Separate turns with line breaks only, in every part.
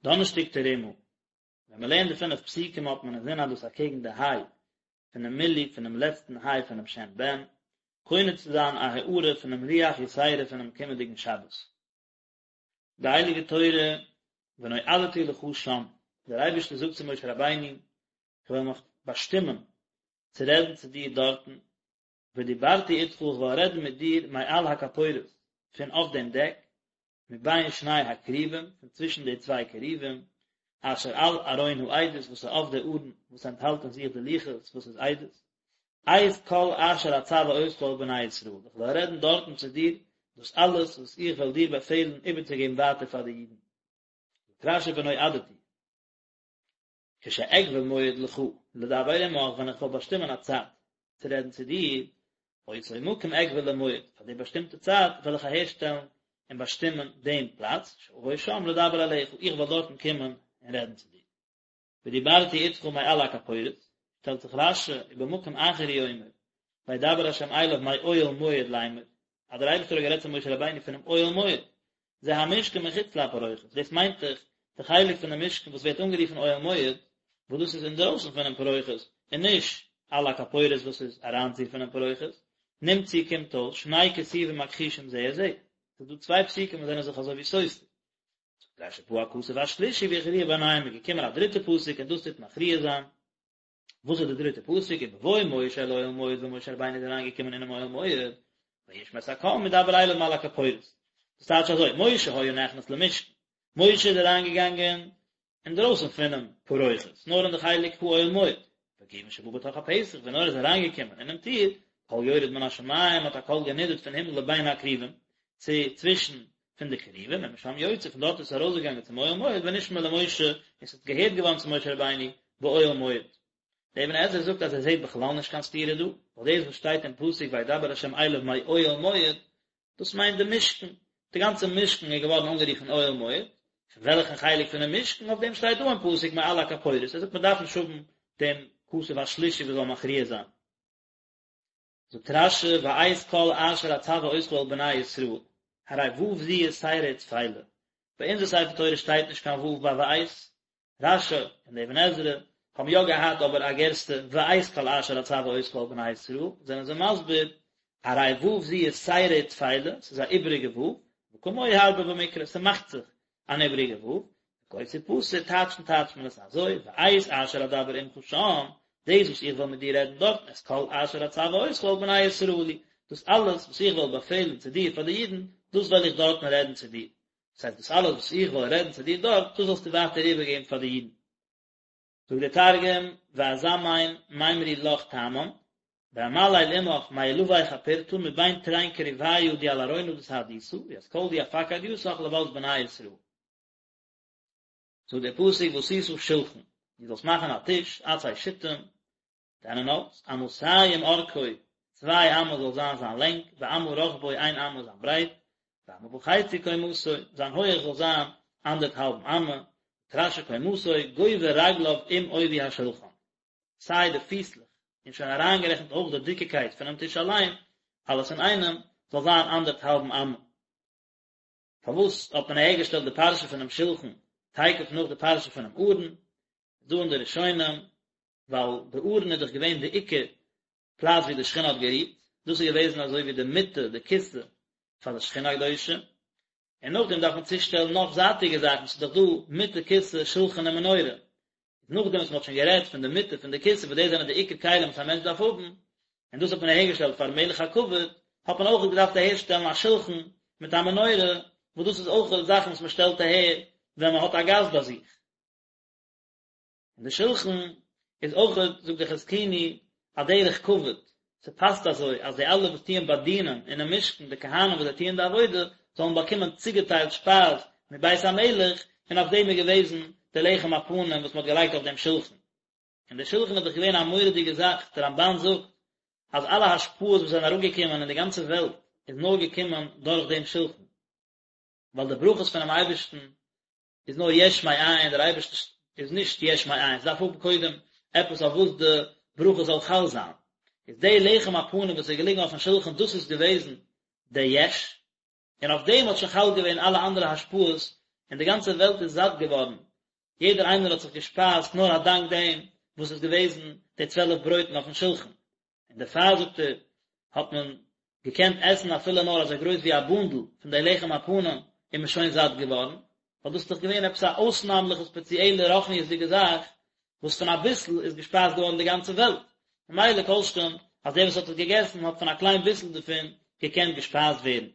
דאנערשטאג תרומה, ווען מען לערנט די פינף פסוקים האט מען אינזין אז דאס אקעגן די היי פונעם מילוי פונעם לעצטן היי פונעם שם בן, קונה צו זיין א הארה פונעם רוח יתירה פונעם קומענדיגן שבת. די הייליגע תורה ונועדתי לך שם, דער אייבערשטער זאגט צו משה רבינו, איך וועל מיך באשטימען צו רעדן צו דיר דארטן, ודיברתי אתך איך וועל רעדן מיט דיר מעל הכפורת, פון אויף דעם דעק, מבין שני הכרובים, פון צווישן די צוויי כרובים, אשר על ארון העדות וואס איז אויף די ארון וואס ענטהאלט אין זיך די לוחות וואס איז עדות, את כל אשר אצוה אותך אל בני ישראל, איך וועל רעדן דארטן צו דיר דאס אלעס וואס איך וועל דיר באפעלן איבערצוגעבן ווייטער פאר די אידן. זאגט רשי ונועדתי. כשאקבע מועד לך לדבר עמך, ווען איך וועל באשטימען א צייט צו רעדן צו דיר, אותו מקום אקבע למועד, פאר די באשטימטע צייט וועל איך אהערשטעלן און באשטימען דעם פלאץ, שאבוא שם לדבר אליך, איך וועל דארטן קומען און רעדן צו דיר. ודיברתי אתך מעל הכפורת, שטעלט זיך רשי, ובמקום אחר הוא אומר, וידבר השם אליו מאוהל מועד לאמר, אז דער אייבערשטער האט גערעדט צו משה רבינו פונעם אוהל מועד, זה המשכן מחוץ לפרוכת, דאס מיינט דאך די חלק פון די משכן וואס ווערט אנגערופן אוהל מועד, וואס דאס איז אינדרויסן פונעם פרוכת, און נישט על הכפורת וואס איז אריינציר פונעם פרוכת, נמצאו קומט אויס שני כתובים מכחישים זה את זה, ס'איז דא צוויי פסוקים וואס זענען זיך אזוי ווי סותר. זאגט רשי בא הכתוב השלישי והכריע ביניהם איז געקומען א דריטע פסוק און דאס טוט מכריע זיין, וואס איז די דריטע פסוק ובבוא משה אל אוהל מועד ווען משה רבינו איז אריינגעקומען אינעם אוהל מועד וישמע את הקול מדבר אליו מעל הכפורת דאס טייטש אזוי משה היה נכנס למשכן משה איז אריינגעגאנגען אינדרויסן פונעם פרוכת נאר אין די חלק האוהל מועד וכיוון שבא בתוך הפתח ווען ער איז אריינגעקומען אינעם טיר קול יורד מן השמים האט א קול גענידערט פון הימל לבין הכרובים צו צווישן פון די כרובים ומשם יוצא פון דארט איז עס ארויסגעגאנגען צום אוהל מועד ונשמע למשה און עס איז געהערט געווארן צו משה רבינו באוהל מועד. דער אבן עזרא זאגט אז ער זעט בכלל נישט קיין סתירה דא, ווייל דאס וואס שטייט אין פסוק וידבר ה' אליו מאוהל מועד, דאס מיינט די משכן, די גאנצע משכן איז געווארן אנגערופן אוהל מועד, פון וועלכן חלק פונעם משכן, אויף דעם שטייט דא אין פסוק מעל הכפורת, ער זאגט מען דארף נישט האבן דעם כתוב השלישי וואס זאל מכריע זיין. זאגט רשי ואת כל אשר אצוה אותך אל בני ישראל, הרי ו' זו יתירה וטפלה, ביי אונזער ספר תורה שטייט נישט קיין ו' ביי ואת, רשי און די אבן עזרא האבן יא געהאט אבער א גירסא ואת כל אשר אצוה אותך אל בני ישראל, זענען זיי מסביר, הרי ו' זו יתירה וטפלה, ס'איז א איבעריגע ו', וכמוהו הרבה במקרא, ס'מאכט זיך אן איבריגע ו', וכה תפתר טייטשן טייטשט מען עס אזוי, ואת אשר אדבר עמך שם, דאס וואס איך וועל מיט דיר רעדן דארטן, את כל אשר אצוה אותך אל בני ישראל הוא, דאס אלעס וואס איך וועל באפעלן צו דיר פאר די אידן, דאס וועל איך דארטן רעדן צו דיר. דאס הייסט דאס אלעס וואס איך וועל רעדן צו דיר דארט, דאס זאלסטו ווייטער איבערגעבן פאר די אידן. זאגט דער תרגום, ואזמין מימרי לך תמן, ואמליל עמך מעילוי כפורתא מבין תרין כרוביא די על ארונא דסהדותא, וית כל די אפקיד יתך לות בני ישראל. זאגט דער פסוק ועשית שלחן, דו זאלסט מאכן א טיש, עצי שיטים, טענען האלץ, אמתים ארכו, צוויי אמה זאל זיין זיין לענג, ואמה רחבו איין אמה זיין ברייט, ואמה וחצי קומתו, זיין הויעך זאל זיין אנדערטהאלבן אמה, זאגט רשי קומתו, גובה רגליו עם עובי השולחן, סיי די פיסלעך, און שוין אריינגערעכנט אויך די דיקיקייט פונעם טיש אליין, אלעס אינאיינעם, זאל זיין אנדערטהאלבן אמה. פארוואס האט מען אהערגעשטעלט די פרשה פונעם שלחן תיכף נאך די פרשה פונעם ארון? איז דא אין די ראשונים, ווייל די ארון איז דאך געווען די עיקר פלאץ ווי די שכינה האט גערוהט, דאס איז געוועזן אזוי ווי די מיטה, די כסא, פאר די שכינה הקדושה, און נאכדעם דארף מען צושטעלן נאך זייטיגע זאכן, ס'איז דאך דא מיטה, כסא, שלחן און מנורה, נאכדעם וואס מ'האט שוין גערעדט פון די מיטה פון די כסא וואס דאס זענען די עיקר כלים וואס א מענטש דארף האבן, און דאס האט מען אהערגעשטעלט פארן מלך הכבוד, האט מען אויך געדארפט אהערשטעלן א שלחן מיט א מנורה, וואס דאס איז אויך זאכן וואס מען שטעלט אהער ווען מען האט א גאסט ביי זיך. און די שלחן איז אויך, זאגט דער חזקוני, א דרך כבוד, ס'פאסט אזוי אז די אלע וואס טוען באדינען אינעם משכן, די כהנים וואס זיי טוען די עבודה, זאלן באקומען צוגעטיילט שפייז מבית המלך, און אויף דעם איז געוועזן די לחם הפנים וואס מ'האט געלייגט אויף דעם שלחן. און דער שלחן איז דאך געווען א מורא'דיגע זאך, דער רמבן זאגט אז אלע השפעות וואס זענען אראפגעקומען אין די גאנצע וועלט איז נאר געקומען דורך דעם שלחן, ווייל די ברכות פונעם אייבערשטן איז נאר יש מאין, דער אייבערשטער איז נישט יש מאין, עס דארף האבן קודם עפעס אויף וואס די ברכה זאל חל זיין, איז די לחם הפנים וואס איז געליגן אויפן שלחן דאס איז געוועזן די יש, און אויף דעם האט שוין חל געווען אלע אנדערע השפעות, און די גאנצע וועלט איז זאט געווארן. יעדער איינער האט זיך געשפייזט נאר א דאנק דעם וואס איז געוועזן די צוועלף ברויטן אויפן שולחן, און דערפאר זאגט ער האט מען געקענט עסן אפילו נאר אזוי גרויס ווי א בונדל פון די לחם הפנים איז מען שוין זאט געווארן, ווייל דאס איז דאך געווען עפעס א אויסנאמליכע ספעציעלע רוחניות'דיגע זאך וואס פון אביסל איז געשפייזט געווארן די גאנצע וועלט, ממילא כל שכן אז דער וואס האט עס געגעסן האט פון א קליין ביסל דערפון געקענט געשפייזט ווערן.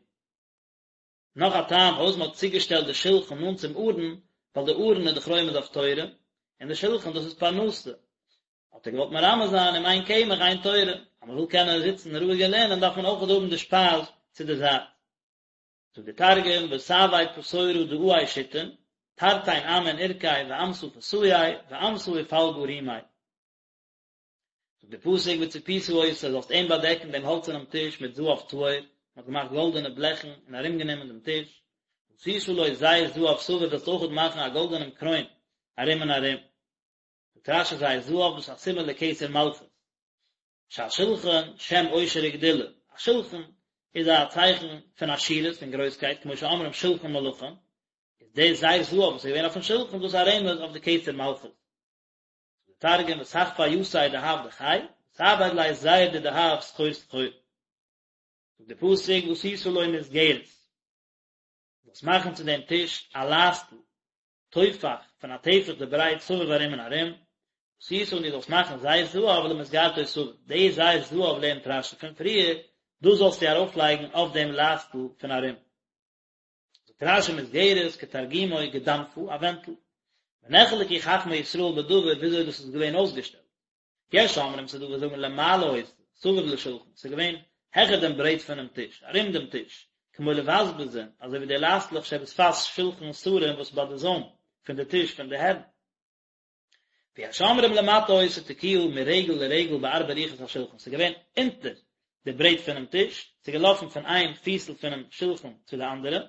נאך א טעם פארוואס מען האט צוגעשטעלט די שלחן נאנט צום ארון, ווייל די ארון איז דאך רומז אויף תורה, און די שלחן דאס איז פרנסה, האט ער געוואלט מרמז זיין אם אין קמח אין תורה, אז מען וויל קענען זיצן רואיג און לערנען דארף מען אויך האבן די שפייז צו די זייט. זאגט דער תרגום, ותעביד פתורא דעי שיתין, תרתין אמין עורקי ואמתא פתאי ואמתא ופלגא רימי. זאגט דער פסוק וצפית אותו, זאלסט אים באדעקן דעם האלצערנעם טיש מיט זהב טהור, מען האט געמאכט גאלדענע בלעכן און ארומגענומען דעם טיש, ועשית לו זר זהב סביב, זאלסט אויכעט מאכן א גאלדענעם קרוין ארום און ארום. זאגט רש"י זר זהב דאס איז א סימן לכתר מלכות. שהשולחן שם עושר וגדולה, א שולחן איז א צייכן פון עשירות פון גרויסקייט, כמו שאומרים שולחן מלכים, איז דער זר זהב וואס איז געווען אויפן שולחן דאס א רמז אויף די כתר מלכות. זאגט דער תרגום ותכפי יתיה דהב דכי, ותעביד ליה זר דדהב סחור סחור. זאגט דער פסוק ועשית לו מסגרת, זאלסט מאכן צו דעם טיש א לייסטל, טופח, פון א טפח די ברייט סביב ארום און ארום, ועשית און דו זאלסט מאכן זר זהב למסגרתו סביב, די זר זהב לערנט רש"י פון פריער, דאס זאלסטו ארויפלייגן אויף דעם לייסטל פון ארום. זאגט רש"י מסגרת כתרגומו גדנפא, א ווענטל. ונחלקו חכמי ישראל בדבר וויאזוי דאס איז געווען אויסגעשטעלט. יש אומרים ס'דא וואס זאגן למעלה היתה, סביב לשולחן, ס'איז געווען העכער דעם ברעט פונעם טיש, ארום דעם טיש, כמו לבזבזין, אזוי ווי די לייסטלעך שבשפת שולחן שרים וואס ביי די זוים פון די טיש פון די הערן. ויש אומרים למטה היתה תקועה מרגל לרגל בארבע רוחות השולחן, ס'איז געווען אונטער די ברעט פונעם טיש, ס'איז געלאפן פון איין פיסל פונעם שולחן צו די אנדערע,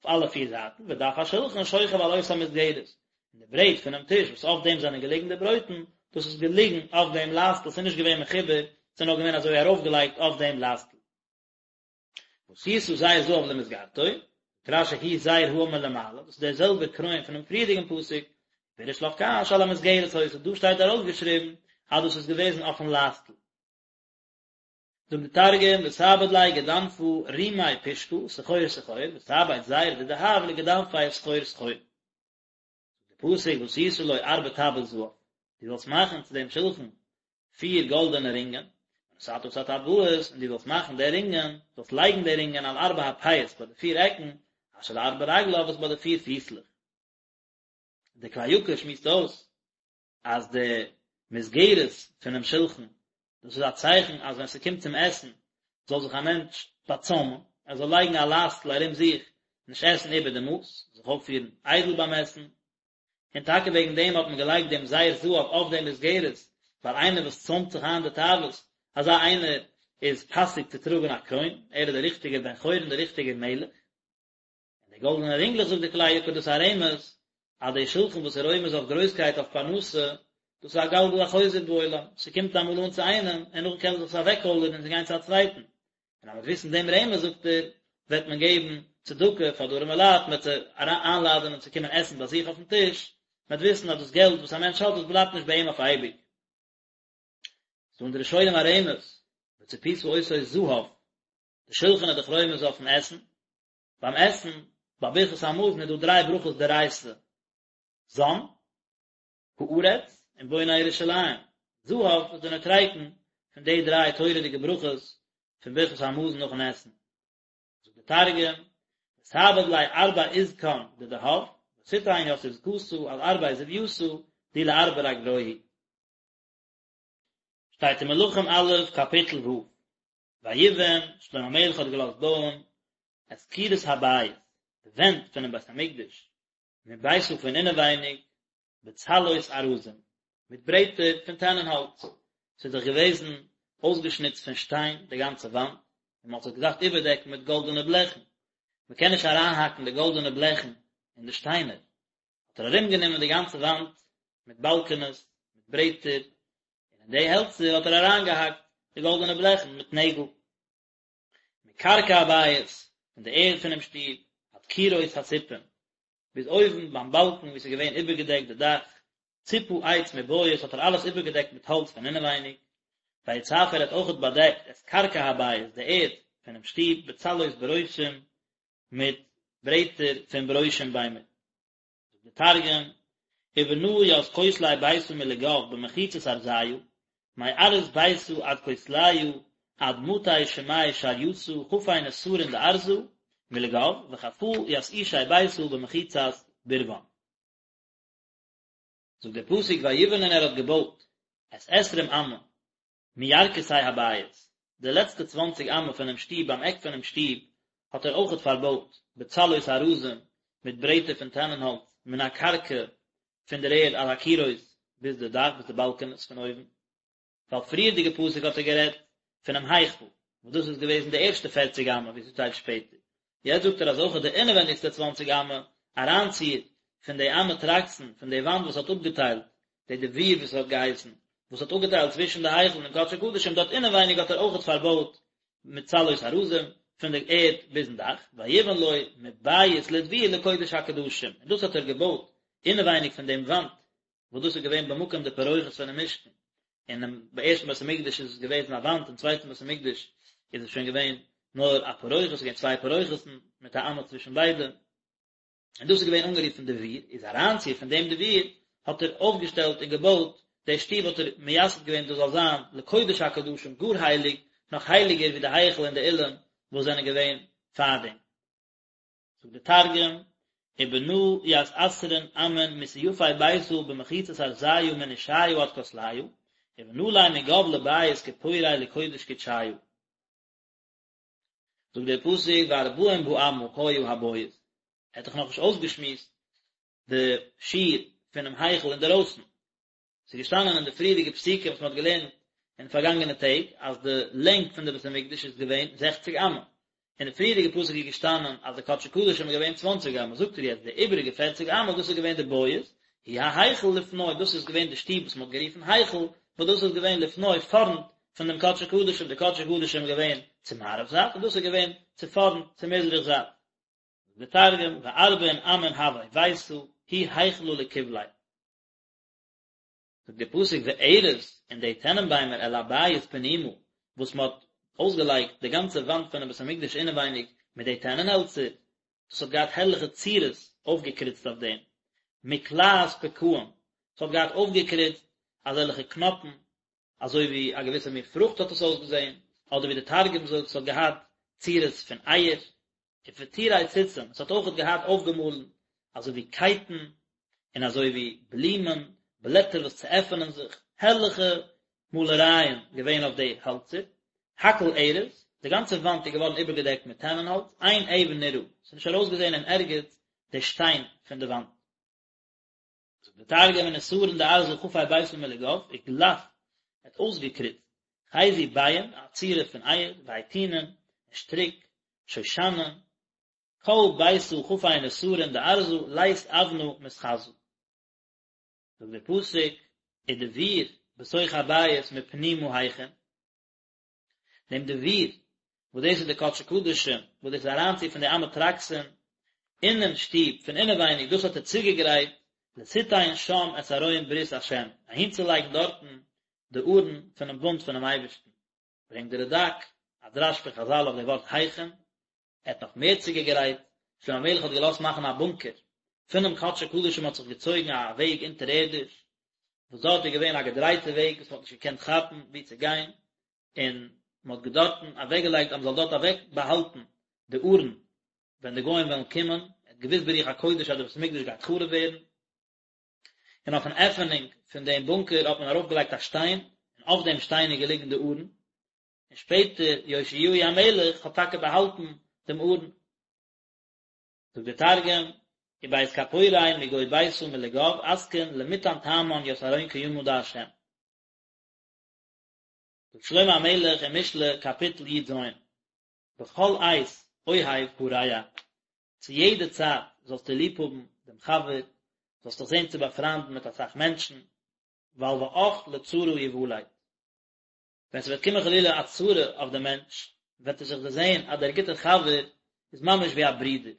אויף אלע פיר זייטן, ודף השולחן שוכב על אותה מסגרת, און די ברעט פונעם טיש וואס אויף דעם זענען געליגן די ברויטן, דאס איז געליגן אויף דעם לייסטל, ס'איז נישט געווען מחובר, ס'איז נאר געווען אזוי ארויפגעלייגט אויף דעם לייסטל. ועשית זר זהב למסגרתו, זאגט רש"י הוא זר האמור למעלה, דאס איז דער זעלבער קרוין פונעם פריערדיגן פסוק, פירש לך כאן שעל המסגרת היתה, דא שטייט ארויסגעשריבן אז דאס איז געוועזן אויפן לייסטל. זאגט די תרגום, ותעביד ליה גדנפא רימי פושקא, סחור סחור, ותעביד זר דדהב לגדנפיה סחור סחור. די פסוק ועשית לו ארבע טבעות זהב, דו זאלסט מאכן צו דעם שולחן פיר גאלדענע רינגען, ונתת את הטבעות, און דו זאלסט מאכן די רינגען, זאלסט לייגן די רינגען על ארבע הפאות ביי די פיר עקן, אשר לארבע רגליו וואס ביי די פיר פיסלעך. די כלי יקר שמועסט אויס אז די מסגרת פונעם שלחן, דאס איז א צייכן אז ווען ס'קומט צום עסן זאל זיך א מענטש באצוימען, ער זאל לייגן א לייסטל ארום זיך, נישט עסן איבער די מאס, זיך אויפפירן איידל ביים עסן, און טאקע וועגן דעם האט מען געלייגט דעם זר זהב אויף דעם מסגרת, ווייל איינער וואס צוימט זיך איין די תאוות, אזא איינער איז פאסיג צו טראגן א קרוין, ער איז דער ריכטיגער בן חורין, דער ריכטיגער מלך. און די גאלדענע רינגלעך זאגט די כלי יקר דאס איז א רמז אז די שלחן וואס איז רומז אויף גרויסקייט אויף פרנסה, דאס איז א גלגל החוזר בעולם, ס'קומט אמאל אן צו איינעם און נאכדעם קען זיך עס אוועקקוילערן און גיין צו א צווייטן, און אז מ'וועט וויסן דעם רמז זאגט ער, וועט מען געבן צדקה פאר די ארימע לייט, מ'וועט זיי איינלאדענען צו קומען עסן ביי זיך אויפן טיש, מ'וועט וויסן אז דאס געלט וואס א מענטש האט דאס בלייבט נישט ביי אים אויף אייביג. ס'דא אין די ראשונים א רמז, וצפית אותו זהב, די שלחן איז דאך רומז אויפן עסן, ביים עסן, ביי ברכת המזון איז דא דריי ברכות דאורייתא, זן, הארץ, און בונה ירושלים. זהב איז די נוטריקון פון די דריי תורה'דיגע ברכות פון ברכת המזון נאכן עסן. זאגט די תרגום, ותעביד ליה ארבע עזקן דדהב, ותתן ית עזקתא על ארבע זויתא, די לארבע רגלוהי. שטייט אין מלכים א' קאפיטל ו', ויבן, שלמה המלך האט געלאזט בויען, את קירות הבית, די ווענט פונעם בית המקדש, מביתה פון אינעווייניג, בצלעות ארזים, מיט ברעטער פון טענענהאלץ, ס'איז דאך געוועזן אויסגעשניצט פון שטיין די גאנצע וואנט, און מ'האט זיך געדארפט איבערדעקן מיט גאלדענע בלעכן, מ'קען נישט אריינהאקן די גאלדענע בלעכן אין די שטיינער, האט ער ארומגענומען די גאנצע וואנט מיט באלקענעס, מיט ברעטער, און אין די העלצער האט ער אריינגעהאקט די גאלדענע בלעכן מיט נעגל. מקרקע הבית, פון די ערד פונעם שטוב, עד קירות הסיפים. ביז אויבן ביים באלקן וואו ס'איז געווען איבערגעדעקט די דאך, צפה עץ מבית האט ער אלעס איבערגעדעקט מיט האלץ פון אינעווייניג, ויצף ער האט אויכעט באדעקט את קרקע הבית די ערד פונעם שטוב בצלעות ברושים מיט ברעטער פון ברושים ביימער. זאגט דער תרגום, ובנא ית כותלי ביתא מלגו במחיצת ארזיא, מארעא ביתא עד כותליא עד מטי שמי שרייתא חפי נסרין דארזא מלגו וחפא ית עישי ביתא במחיצת ברון. זאגט דער פסוק ויבן און ער האט געבויט את עשרים אמה מירכתי הבית, די לעצטע צוואנציג אמה פונעם שטוב ביים עק פונעם שטוב האט ער אויכעט פארבויט בצלעות ארזים מיט ברעטער פון טענענהאלץ מן הקרקע פון דער ערד עד הקירות ביז די דאך ביז די באלקענעס פון אויבן. ווייל פריערדיגע פסוק האט ער גערעדט פונעם היכל, וואס דאס איז געוועזן די ערשטע פערציג אמה ווי ס'שטייט שפעטער, יעצט זאגט ער אז אויך די אינעווענדיגסטע צוואנציג אמה אריינציר פון די אמה טרקסין פון די וואנט וואס האט אפגעטיילט די דביר וואס האט געהייסן וואס האט אפגעטיילט צווישן די היכל און דעם קדשי קדשים דארט אינעווייניג האט ער אויכעט פארבויט מיט צלעות ארזים פון די ערד ביזן דאך, ויבן לו מבית לדביר לקודש הקדשים, און דאס האט ער געבויט אינעווייניג פון דעם וואנט וואס דאס איז געווען במקום די פרוכת פונעם משכן, אינעם ערשטן בית המקדש איז עס געוועזן א וואנט, אין צווייטן בית המקדש איז עס שוין געווען נאר א פרוכת, עס איז געווען צוויי פרוכת'ן מיט א אמה צווישן ביידע, און דאס איז געווען אנגערופן דביר, איז אריינציר פון דעם דביר האט ער אויפגעשטעלט און געבויט די שטוב האט ער מייסד געווען דאס זאל זיין לקודש הקדשים גאר הייליג, נאך הייליגער ווי די היכל און די אולם וואס זענען געווען פארדעם. זאגט דער תרגום, ובנא ית עשרין אמין מסיפי ביתא במחיצת ארזיא מנושיא עד כותליא, ובנא ליה מגו לבית כפוריה לקודש קודשיא. זאגט דער פסוק וארבעים באמה היה הבית, ער האט דאך נאכנישט אויסגעשמועסט די שיעור פונעם היכל אינדערויסן, ס'איז געשטאנען אין די פריערדיגע פסוקים וואס מ'האט געלערנט אין פארגאנגענע טעג אז די לענג פון די בית המקדש איז געווען זעכציג אמה, אין די פריערדיגע פסוק איז געשטאנען אז די קדשי קדשים איז געווען צוואנציג אמה, זאגט ער יעצט די איבעריגע פערציג אמה דאס איז געווען די בית, הוא ההיכל לפני, דאס איז געווען די שטוב וואס מ'האט גערופן היכל, וואס דאס איז געווען לפני פארנט פון דעם קדשי קדשים, די קדשי קדשים איז געווען צו מערב זייט און דאס איז געווען צו פארנט צו מזרח זייט. זאגט דער תרגום, וארבעין אמין הוה ביתא, הוא היכלא לקבליה. זאגט דער פסוק וארז און די טענענביימער אל הבית פנימה וואס מען האט אויסגעלייגט די גאנצע וואנט פונעם בית המקדש אינעווייניג מיט די טענענהעלצער, דאס האט געהאט הערליכע צורות אויפגעקריצט אויף דעם, מקלעת פקעים, עס האט געהאט אויפגעקריצט אזעלכע קנאפן, אזוי ווי א געוויסע מין פרוכט האט עס אויסגעזען, אדער ווי די תרגום זאגט, עס האט געהאט צורות פון אייער, ופטורי ציצים, עס האט אויכעט געהאט אויפגעמאלן אזוי ווי קייטן, און אזוי ווי בלומען, בלעטער וואס צועפענען זיך, הערליכע מאלערייען געווען אויף די העלצער, הכל ארז, די גאנצע וואנט איז געווארן איבערגעדעקט מיט טענענהאלץ, אין אבן נראה, עס איז נישט ארויסגעזען אין ערגעץ די שטיין פון די וואנט. זאגט די תרגום ונסרין דארזא חפי ביתא מלגו וגלף, ער האט אויסגעקריצט חזו ביעין א צורה פון אייער והיטינין און שטריק שושנין כל ביתא חפי נסרין דארזא לית אבנא מתחזא. זאגט דער פסוק ודביר בתוך הבית מפנימה הכין. דעם דביר, וואס דאס איז די קדשי קדשים, וואס דאס איז אריינציר פון די אמה טרקסין אינעם שטוב פון אינעווייניג, דאס האט ער צוגעגרייט, לתתן שם את ארון ברית השם, אהינצולייגן דארטן די ארון פונעם בונד פונעם אייבערשטן. ברענגט די רד"ק א דרש פון חז"ל אויף די ווארט הכין, ער האט נאך מער צוגעגרייט, שלמה המלך האט געלאזט מאכן א בונקער, פונעם קדשי קדשים האט זיך געצויגן א וועג אונטערערדיש, וואס דארט איז געווען א געדרייטע וועג וואס מען האט נישט געקענט כאפן וואו צו גיין, און מען האט דארטן אוועקגעלייגט אז מען זאל דארט אוועק באהאלטן די ארון ווען די גוים וועלן קומען, ער האט געוואוסט ברוח הקודש אז די בית המקדש גייט חרוב ווערן, און אויפן עפענונג פון דעם בונקער האט מען ארויפגעלייגט א שטיין, און אויף דעם שטיין איז געליגן די ארון, און שפעטער יאשיהו המלך האט טאקע באהאלטן דעם ארון. זאגט דער תרגום, ובית כפורי מגו ביתא מלגו אתקין למתן תמן ית ארון קימא דה'. זאגט שלמה המלך אין משלי קאפיטל י"ז, בכל עת אוהב הרע, צו יעדע צייט זאלסטו ליב האבן דעם חבר, זאלסט דיך זען צו באפריינדן מיט אסאך מענטשן, ווייל ואח לצרה יולד. ווען ס'וועט קומען חלילה א צרה אויף דעם מענטש, וועט ער זיך דערזען אז דער גוטער חבר איז ממש ווי א ברודער.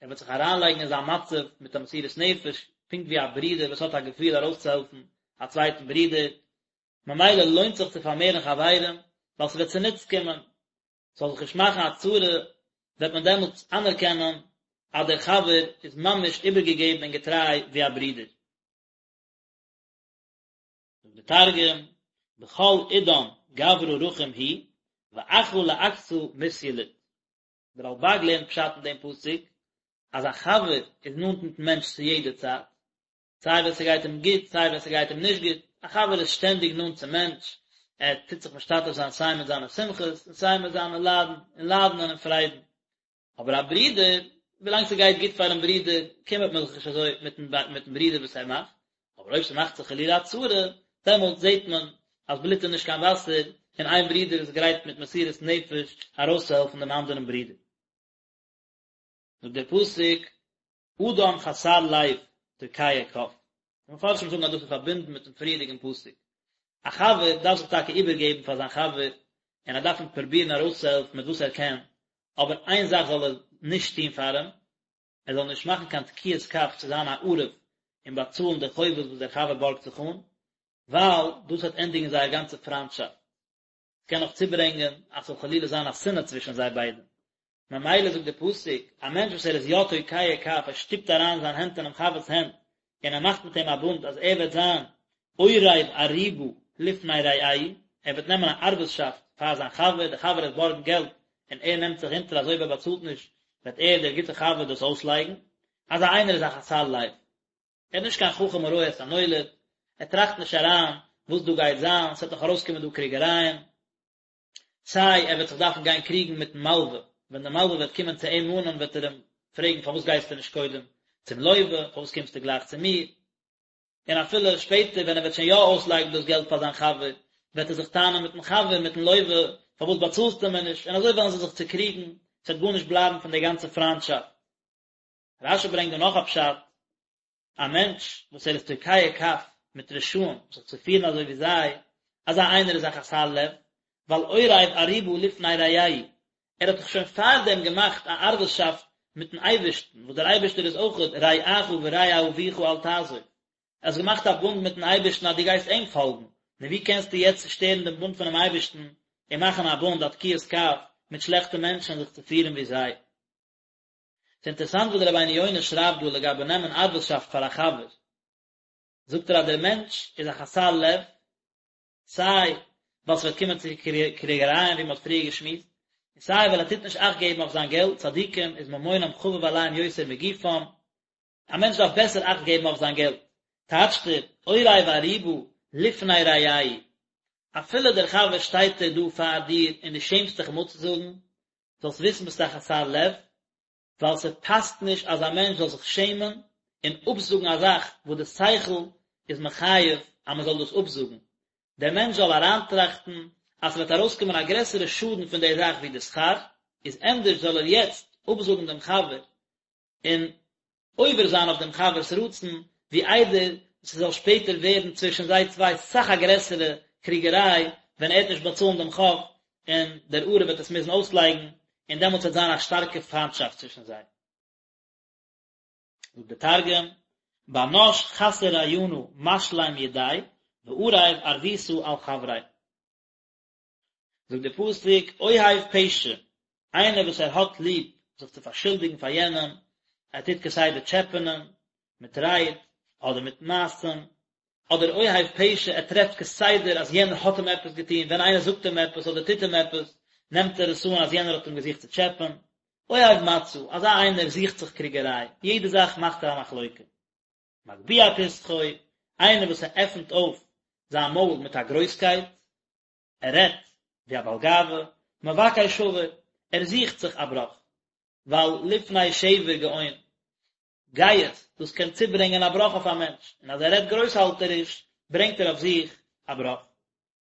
ער וועט זיך אריינלייגן אין זיין מצב מיט א מסירות נפש, פונקט ווי א ברודער וואס האט א געפיל ארויסצוהעלפן א צווייטן ברודער, ממילא לוינט זיך צו פארמערן חברים, ווייל ס'וועט צוניץ קומען, ס'זאל זיך נישט מאכן א צרה, וועט מען דעמאלטס אנערקענען אז דער חבר איז ממש איבערגעגעבן און געטריי ווי א ברודער. זאגט דער תרגום, בכל עידן גברא רחים הוא, ואחא לעקתא מתיליד. דער רלבג לערנט פשט אין דעם פסוק, אז א חבר איז נאנט מיטן מענטש צו יעדע צייט, סיי ווען ס'גייט אים גוט, סיי ווען ס'גייט אים נישט גוט, א חבר איז שטענדיג נאנט צום מענטש, ער טוט זיך משתתף זיין סיי מיט זיינע שמחות און סיי מיט זיינע ליידן, און ליידן און אין פריידן. אבער א ברודער, ווילאנג ס'גייט גוט פאר'ן ברודער, קימערט מען זיך נישט אזוי מיט'ן מיט'ן ברודער וואס ער מאכט, אבער אויב ס'מאכט זיך חלילה א צרה, דעמאלט זעט מען אז בלוט איז נישט קיין וואסער, און איין ברודער איז גרייט מיט מסירות נפש ארויסצוהעלפן דעם אנדערן ברודער. זאגט דער פסוק, אדם חסר לב תוקע כף. די מפרשים זאגן אז דאס איז פארבינדן מיט'ן פריערדיגן פסוק. א חבר דארף זיך טאקע איבערגעבן פאר זיין חבר, און ער דארף אים פרובירן ארויסצוהעלפן מיט וואס ער קען, אבער איין זאך זאל ער נישט טון פאר אים, ער זאל נישט מאכן קיין תקיעת כף צו זיין א ערב און באצאלן די חובות וואס דער חבר בארגט זיך אן, ווייל דאס וועט ענדיגן זייער גאנצע פריינטשאפט. ס'קען נאך צוברענגען אז ס'זאל חלילה זיין א שנאה צווישן זיי ביידע. ממילא זאגט דער פסוק, א מענטש וואס ער איז יא תוקע כף, ער שטופט אריין זיין הענט אינעם חבר'ס הענט, און ער מאכט מיט אים א בונד אז ער וועט זיין עורב ערובה לפני רעהו, ער וועט נעמען א ערבות'שאפט פאר זיין חבר, דער חבר וועט בארגן געלט, און ער נעמט זיך אונטער אז אויב ער באצאלט נישט, וועט ער, דער גוטער חבר, דאס אויסלייגן. אזא איינער איז א חסר לב. ער איז נישט קיין חכם הרואה את הנולד, ער טראכט נישט אריין וואס דא גייט זיין, ס'וועט נאך ארויסקומען דא קריגערייען, סיי ער וועט זיך דארפן גיין קריגן מיטן מלווה, ווען דער מלווה וועט קומען צו אים מאנען וועט ער אים פרעגן פארוואס גייסטו נישט קודם צום לווה, פארוואס קומסטו גלייך צו מיר, און אפילו שפעטער ווען ער וועט שוין יא אויסלייגן דאס געלט פאר זיין חבר, וועט ער זיך טענה'ן מיטן חבר, מיטן לווה, פארוואס באצאלסטו מיר נישט, און אזוי וועלן זיי זיך צוקריגן, ס'וועט גארנישט בלייבן פון דער גאנצער פריינטשאפט. רש"י ברענגט דא נאך א פשט, א מענטש וואס ער איז תוקע כף מיט רשעים זיך צו פירן אזוי ווי זיי, אזא איינער איז א חסר לב, ווייל עורב ערובה לפני רעהו, ער האט דאך שוין פארדעם געמאכט א ערבות'שאפט מיטן אייבערשטן, וואס דער אייבערשטער איז אויכעט רעך ורע אביך אל תעזוב, ער האט געמאכט א בונד מיטן אייבערשטן אז דו גייסט אים פאלגן, נו ווי קענסטו יעצט צושטערן דעם בונד פונעם אייבערשטן און מאכן א בונד א תקיעת כף מיט שלעכטע מענטשן זיך צו פירן ווי זיי? ס'אינטערעסאנט וואס דער רבינו יונה שרייבט דא לגבי נעמען ערבות'שאפט פאר א חבר, זאגט ער אז דער מענטש איז א חסר לב, סיי ווייל ס'וועט קומען צו קריגערייען ווי מ'האט פריער געשמועסט, און סיי ווייל ער טוט נישט אכט געבן אויף זיין געלט, צדיקים איז ממונם חביב עליהם יותר מגופם, א מענטש דארף בעסער אכט געבן אויף זיין געלט, טייטשט ער, עורב ערובה לפני רעהו, אפילו דער חבר שטייט ער דא פאר דיר און דו שעמסט דיך אים אפצוזאגן, זאלסט וויסן ביסט א חסר לב, ווייל ס'פאסט נישט אז א מענטש זאל זיך שעמען און אפזאגן א זאך וואס די שכל איז מחייב אז מען זאל דאס אפזאגן, דער מענטש זאל אריינטראכטן אז ס'וועט ארויסקומען א גרעסערע שאדן פון די זאך ווי די שכר, איז ענדערש זאל ער יעצט אפזאגן דעם חבר און עובר זיין אויף דעם חבר'ס רצון, ווי איידער ס'זאל שפעטער ווערן צווישן זיי צוויי סאך א גרעסערע קריגעריי, ווען ער וועט נישט באצאלן דעם חוב, און דער ערב וועט עס מוזן אויסלייגן, און דעמאלטס וועט זיין א שטארקע פיינטשאפט צווישן זיי. זאגט דער תרגום, בר נש חסר רעיונא משלים ידיה, וערב ערבותא על חבריה. זאגט דער פסוק אוהב פשע, איינער וואס ער האט ליב זיך צו פארשולדיגן פאר יענעם, ער טוט כסדר טשעפענען מיט רייד אדער מיט מעשים, אדער אוהב פשע, ער טרעפט כסדר אז יענער האט אים עפעס געטון, ווען איינער זאגט אים עפעס אדער טוט אים עפעס, נעמט ער עס אן אז יענער האט אים געזוכט צו טשעפען. אוהב מצה, אזא איינער זוכט זיך קריגעריי, יעדע זאך מאכט ער א מחלוקה. מגביה פתחו, איינער וואס ער עפנט אויף זיין מויל מיט א גרויסקייט, ער רעדט ווי א בעל גאווה, מבקש שבר, ער זוכט זיך א בראך, ווייל לפני שבר גאון, גאות, דאס קען צוברענגען א בראך אויף א מענטש, און אז ער רעדט גרויסהאלטעריש, ברענגט ער אויף זיך א בראך.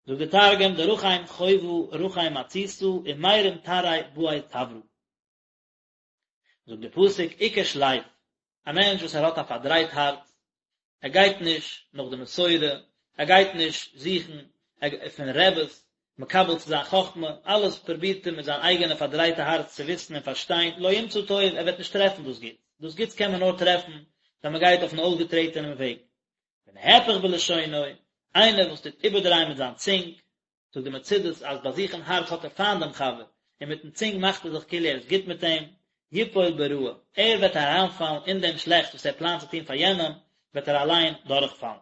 זאגט דער תרגום, דרחים חובא רחים מצותא ומרים תרעיה בעי תברא. זאגט דער פסוק עקש לב, א מענטש וואס ער האט א פארדרייט הארץ, ער גייט נישט נאך די מסורה, ער גייט נישט זוכן פון רעבעס. מקבל צו זיין חכמה, אלעס פרובירט ער מיט זיין אייגענע פארדרייטע הארץ צו וויסן און פארשטיין, לא ימצא טוב, ער וועט נישט טרעפן דאס גוטס, דאס גוטס קען מען נאר טרעפן ווען מען גייט אויפן אויסגעטרעטענעם וועג. ונהפך בלשונו, איינער וואס טוט איבערדרייען מיט זיין צונג, זאגט די מצודות אז ביי זיך אין הארץ האט ער פיינט דעם חבר, און מיטן צונג מאכט ער זיך כאילו ער איז גוט מיט אים, יפול ברעה, ער וועט אריינפאלן אין דעם שלעכטס וואס ער פלאנט צו טון פאר יענעם, וועט ער אליין דורכפאלן.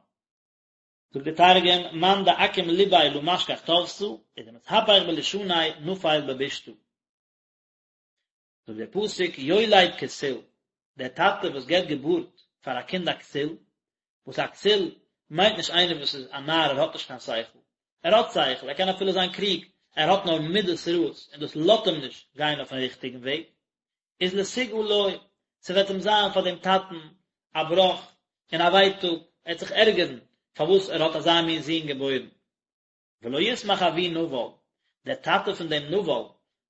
זאגט דער תרגום, מאן דעקים לביה לא משכח טבתא, ודמתהפך בלישניה נפיל בבישתא. זאגט דער פסוק יולד כסיל, דער טאטע וואס געבט געבורט פאר א קינד א כסיל, וואס א כסיל מיינט נישט איינער וואס איז א נאר ער האט נישט קיין שכל, ער האט שכל, ער קען אפילו זיין קלוג, ער האט נאר מידות רעות און דאס לאזט אים נישט גיין אויפן ריכטיגן וועג, איז לתוגה לו, ס'וועט אים זיין פאר דעם טאטן א בראך און א ווייטאג, ער וועט זיך ערגערן פארוואס ער האט אזא מין זון געבוירן. ולא ישמח אבי נבל, דער טאטע פון דעם נבל,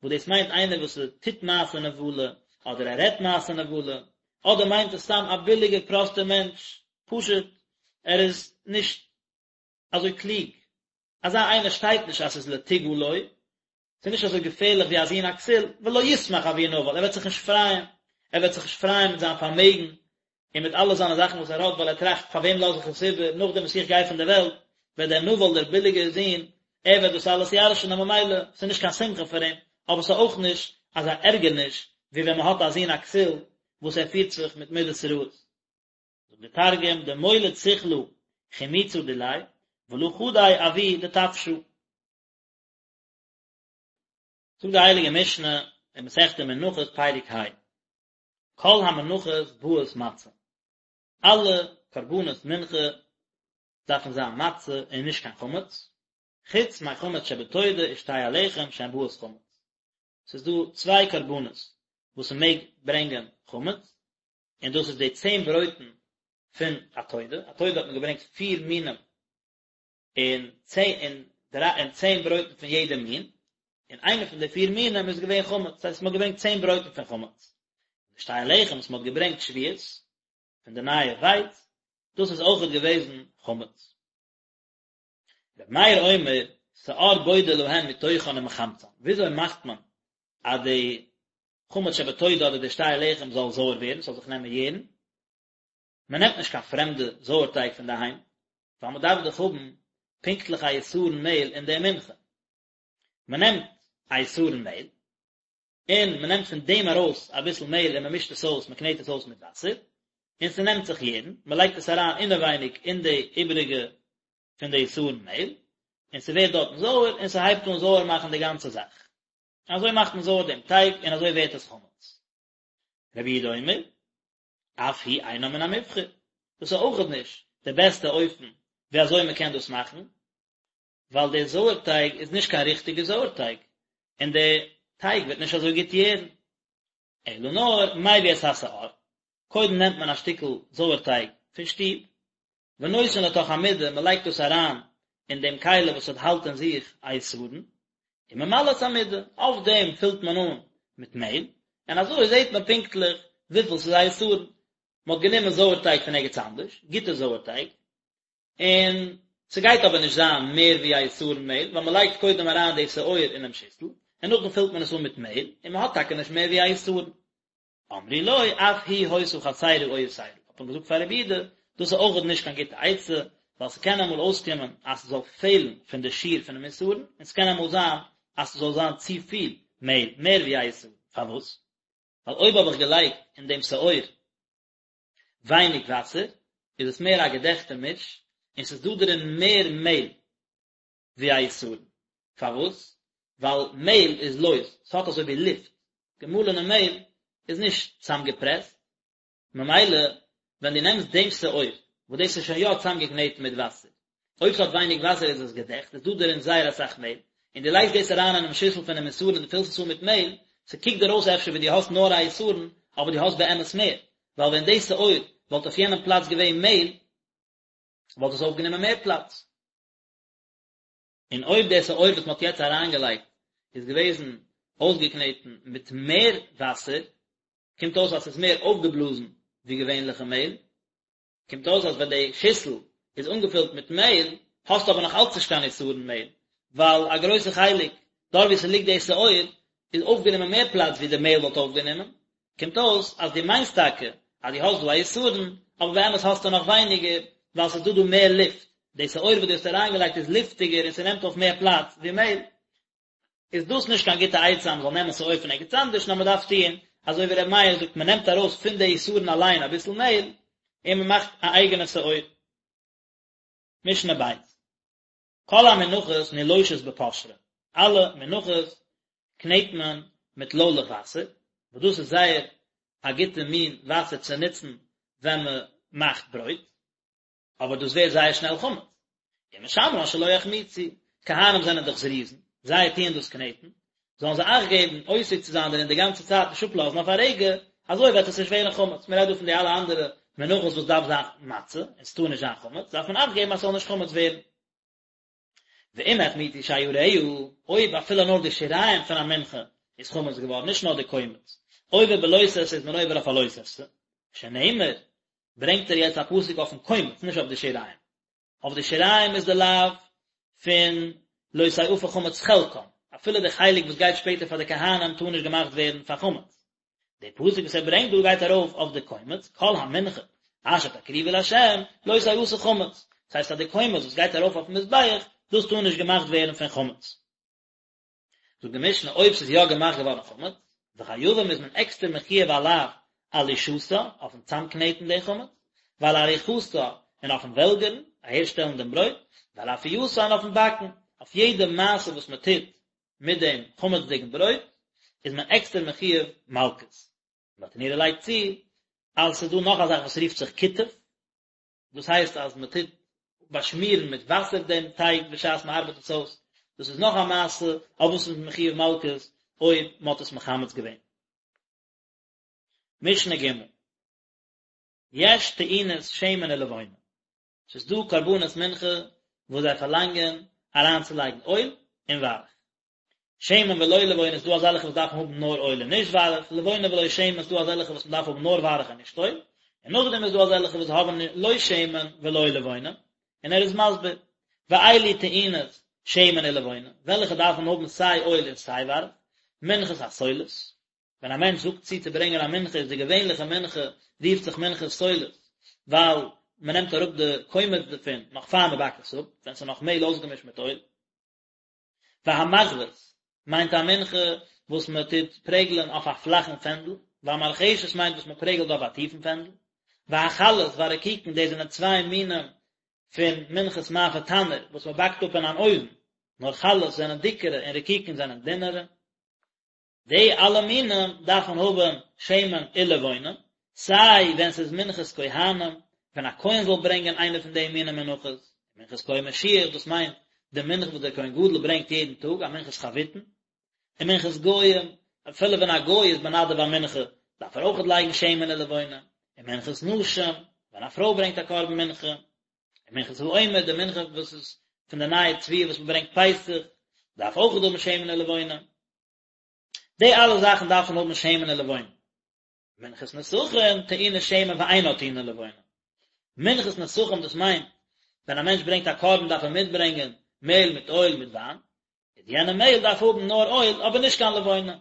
וואס דאס מיינט איינער וואס טוט מעשה נבלה, אדער ער רעדט מעשה נבלה, אדער מיינט עס סתם א ביליגער פראסטער מענטש, פשוט ער איז נישט אזוי קלוג, אזא איינער שטייט נישט אז ס'איז לתוגה לו, ס'איז נישט אזוי געפערליך ווי א זון א כסיל, ולא ישמח אבי נבל, ער וועט זיך נישט פרייען, ער וועט זיך נישט פרייען מיט זיין פארמעגן, און מיט אלע זיינע זאכן וואס ער האט, ווייל ער טראכט, פאר וועם לאז איך עס איבער, נאכדעם וואס איך גיי פון דער וועלט, וועט דער נבל, דער ביליגער זון, ער וועט דאס אלעס ירש'ן, און ממילא, ס'איז נישט קיין שמחה פאר אים, אבער ס'איז אויך נישט אזא ערגערניש, ווי ווען מ'האט א זון א כסיל, וואס ער פירט זיך מיט מידות רעות. זאגט דער תרגום, דמוליד סכלא חימוצא דיליה, ולא חדי אבוי דטפשא. זאגט די הייליגע משנה אין מסכת מנחות פרק ה, כל המנחות באות מצה, אלע קרבנות מנחה דארפן זיין מצה און נישט קיין חמץ, חוץ מחמץ שבתודה ושתי הלחם שהן באות חמץ, ס'איז דא צוויי קרבנות וואס מ'מעג ברענגען חמץ, און דאס איז די צען ברויטן פון א תודה, א תודה האט מען געברענגט פיר מינים און צען און דריי און צען ברויטן פון יעדע מין, און איינע פון די פיר מינים איז געווען חמץ, דאס הייסט מען האט געברענגט צען ברויטן פון חמץ. די שתי הלחם וואס מען האט געברענגט שבועות פון די נייע ווייץ, דאס איז אויכעט געוועזן חמץ. רבי מאיר אומר, שאור בודה להן מתוכן ומחמצן, וויאזוי מאכט מען אז די חמץ שבתודה אדער די שתי הלחם זאל זויער ווערן, ס'זאל זיך נעמען יערן? מען נעמט נישט קיין פרעמדע זויערטייג פון די היים, ווייל מען דארף דאך האבן פונקטליך א עשרון מעהל אין די מנחה. מען נעמט א עשרון מעהל, און מען נעמט פון דעם ארויס אביסל מעהל און מען מישט עס אויס, מען קנעט עס אויס מיט וואסער, און ס'נעמט זיך יערן, מען לייגט עס אריין אינעווייניג אין די איבעריגע פון די עשרון מעהל, און ס'ווערט דארטן זויער, און ס'הייבט אן זויער מאכן די גאנצע זאך. אזוי מאכט מען זויער דעם טייג, און אזוי ווערט עס חמץ. רבי יהודה אומר, אף היא אינה מן המובחר, דאס איז אויכעט נישט די בעסטע אופן ווי אזוי מען קען דאס מאכן, ווייל דער זויערטייג איז נישט קיין ריכטיגע זויערטייג, און דער טייג וועט נישט אזוי גוט יערן. אלא נאר מביא את השאור, קודם נעמט מען א שטיקל זויערטייג פון שטוב, ונותן לתוך המידה, מען לייגט דאס אריין אין דעם כלי וואס האט האלט אין זיך א עשרון, וממלא את המידה, אויף דעם פילט מען אן מיט מעהל, און אזוי זעט מען פונקטליך וויפיל ס'איז א עשרון. מען האט גענומען זויערטייג פון ערגעץ אנדערש, גוטע זויערטייג, און ס'גייט אבער נישט זיין מער ווי א עשרון מעהל, ווייל מען לייגט קודם אריין די שאור אינעם שיסל, און נאכדעם פילט מען עס אן מיט מעהל, און מען האט טאקע נישט מער ווי א עשרון. אמרו לו, אף היא היתה חסרה או יתירה, האט מען געזאגט פאר רבי יהודה, דאס איז אויכעט נישט קיין גוטע עצה, ווייל ס'קען אמאל אויסקומען אז ס'זאל פעלן פון די שיעור פונעם עשרון, און ס'קען אמאל זיין אז ס'זאל זיין צופיל מעהל, מער ווי א עשרון, פארוואס? ווייל אויב האב איך געלייגט אין דעם שאור ווייניג וואסער, איז עס מער א געדעכטע מיש, און ס'איז דא דערין מער מעהל, ווי א עשרון. פארוואס? ווייל מעהל איז לויז, ס'האט אזוי ווי לופט, געמאלענע מעהל איז נישט צאמגעפרעסט, ממילא ווען דו נעמסט דעם שאור, וואס דאס איז שוין יא צאמגעקנעטן מיט וואסער, אויב ס'האט ווייניג וואסער איז עס געדעכט, איז דא דערין זייער אסאך מעהל, און דו לייגסט דאס אריין אינעם שיסל פונעם עשרון און דו פילסט עס אן מיט מעהל, ס'קוקט דיר אויס אפשר ווי דו האסט נאר א עשרון, אבער דו האסט באמת מער, ווייל ווען די שאור וואלט אויף יענעם פלאץ געווען מעהל, וואלט עס אויפגענומען מער פלאץ. און אויב דער שאור וואס מען האט יעצט אריינגעלייגט איז געוועזן אויסגעקנעטן מיט מער וואסער, קומט אויס אז ס'איז מער אויפגעבלאזן ווי געווענליכע מעהל, קומט אויס אז ווען די שיסל איז אנגעפילט מיט מעהל, האסטו אבער נאך אלץ נישט קיין עשרון מעהל, ווייל א גרויסע חלק דארט ווי ס'ליגט די שאור איז אויפגענומען מער פלאץ ווי די מעהל וואלט אויפגענומען, קומט אויס אז דו מיינסט טאקע אז דו האסט דא א יתרון, אבער באמת האסטו נאך ווייניגער, ווייל ס'איז דא דא מער לופט, די שאור וואס דו האסט אריינגעלייגט איז לופטיגער און ס'נעמט אויף מער פלאץ ווי מעהל. איז דאס נישט קיין גוטע עצה אז מ'זאל נעמען שאור פון ערגעץ אנדערש, נאר מ'דארף טוען אזוי ווי ר' מאיר זאגט, מ'נעמט ארויס פון די יתרון אליין אביסל מעהל און מ'מאכט א אייגענע שאור. משנה ב'. כל המנחות נילושות בפושרין, אלע מנחות קנעט מען מיט לוילעך וואסער, וואס דאס איז זייער א גוטע מין וואסער צו נוצן ווען מען מאכט ברויט, אבער דאס ווערט זייער שנעל חמץ, ומשמרן שלא יחמיצו, כהנים זענען דאך זריזין, זיי טוען דאס קנעטן, זאלן זיי אכט געבן עוסק צו זיין דערין די גאנצע צייט נישט אפלאזן אויף א רגע, אזוי וועט עס נישט ווערן חמץ, מען רעדט דא פון די אלע אנדערע מנחות וואס דארף זיין מצה, און ס'טאר נישט זיין חמץ, דארף מען אכט געבן אז ס'זאל נישט חמץ ווערן. ואם החמיצו שיריה, אויב אפילו נאר די שיריים פון א מנחה איז חמץ געווארן, נישט נאר די קומץ, עובר בלא תעשה איז מען עובר אויף א לא תעשה, שנאמר, ברענגט ער יעצט א פסוק אויפן קומץ, נישט אויף די שיריים. אויף די שיריים איז די לאו פון לא תאפה חמץ חלקם, אפילו די חלק וואס גייט שפעטער פאר די כהנים טאר נישט געמאכט ווערן פאר חמץ. די פסוק וואס ער ברענגט דא גייט ארויף אויף די קומץ, כל המנחה אשר תקריבו לה' לא תעשה חמץ, דאס הייסט אז די קומץ וואס גייט ארויף אויפן מזבח, דאס טאר נישט געמאכט ווערן פון חמץ. זאגט די משנה אויב ס'איז יא געמאכט געווארן חמץ, וחייבים איז מען עקסטער מחויב א לאו על לישתה, אויפן צאמקנעטן די חמץ, ועל עריכתה, און אויפן וועלגערן, אהערשטעלן דעם ברויט, ועל אפייתה און אויפן באקן, אויף יעדע מעשה וואס מען טוט מיט דעם חמצ'דיגן ברויט, איז מען עקסטער מחויב מלקות. ברטנורא לייגט צו, אז ס'איז דא נאך א זאך וואס רופט זיך כיתוף, דאס הייסט אז מען טוט באשמירן מיט וואסער דעם טייג בשעת מען ארבעט עס אויס, דאס איז נאך א מעשה אויף וואס מ'איז מחויב מלקות אויב מען האט עס מחמץ געווען. משנה ג' יש טעונות שמן ולבונה, ס'איז דא קרבנות מנחה וואס זיי פארלאנגען אריינצולייגן אויל און וויירעך. שמן ולא לבונה איז דא אזעלכע וואס דארפן האבן נאר אויל און נישט וויירעך, לבונה ולא שמן איז דא אזעלכע וואס מען דארף האבן נאר וויירעך און נישט אויל, און נאכדעם איז דא אזעלכע וואס האבן לא שמן ולא לבונה, און ער איז מסביר, ואלו טעונות שמן ולבונה, וועלכע דארפן האבן סיי אויל און סיי וויירעך, מנחת הסולת, ווען א מענטש זאגט צו צו ברענגען א מנחה איז די געווענליכע מנחה רופט זיך מנחת סולת, ווייל מען נעמט אראפ די קומץ דערפון נאך פאר מען באקט עס אפ, ווען ס'איז נאך מעהל אויסגעמישט מיט אויל. והמחבת מיינט א מנחה וואס מען טוט פרעגלען אויף א פלאכן פענדל, והמרחשת מיינט וואס מען פרעגלט אויף א טיפן פענדל, והחלות והרקיקין דאס זענען צוויי מינים פון מנחת מאפה תנור וואס מען באקט אפ אין אן אויוון, נאר חלות זענען דיקערע און רקיקין זענען דינערע. די אלע מינים דארפן האבן שמן ולבונה, סיי ווען ס'איז מנחת כהנים, ווען א כהן זאל ברענגען איינע פון די מיני מנחות, מנחת כהן משיח, דאס מיינט די מנחה וואס דער כהן גדול ברענגט יעדן טאג, א מנחת חביתין, און מנחת גוים, אפילו ווען א גוי איז מנדב א מנחה, דארף ער אויכעט לייגן שמן ולבונה, און מנחת נשים, ווען א פרוי ברענגט א קרבן מנחה, און מנחת העומר, די מנחה וואס איז פון די נייע תבואה וואס מען ברענגט פסח, דארף אויכעט האבן שמן ולבונה. די אלע זאכן דארפן האבן שמן ולבונה. מנחת נסכים טעונה שמן ואינה טעונה לבונה. מנחת נסכים דאס מיינט ווען א מענטש ברענגט א קרבן דארף ער מיטברענגען מעהל מיט אויל מיט וויין, איז יענע מעהל דארף האבן נאר אויל אבער נישט קיין לבונה.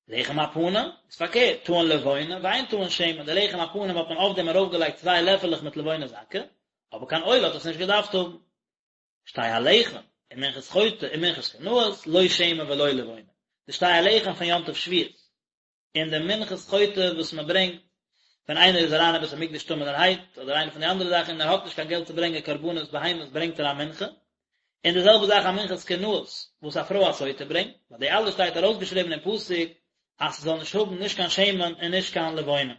לחם הפנים איז פארקערט, טעון לבונה ואין טעון שמן, די לחם הפנים האט מען אויף דעם ארויפגעלייגט צוויי לעפעלעך מיט לבונה זכה, אבער קיין אויל האט עס נישט געדארפט האבן. שתי הלחם, און מנחת חוטא און מנחת קנאות, לא שמן ולא לבונה. די שתי הלחם פון יום טוב שבועות, און די מנחת חוטא וואס מען ברענגט ווען איינער איז אריין אין בית המקדש טמא'נערהייט, אדער איינע פון די אנדערע זאכן און ער האט נישט קיין געלט צו ברענגען קרבנות בהמות ברענגט ער א מנחה, און די זעלבע זאך א מנחת קנאות וואס א פרוי א סוטה ברענגט, ביי די אלע שטייט ארויסגעשריבן אין פסוק אז ס'זאל נישט האבן נישט קיין שמן און נישט קיין לבונה.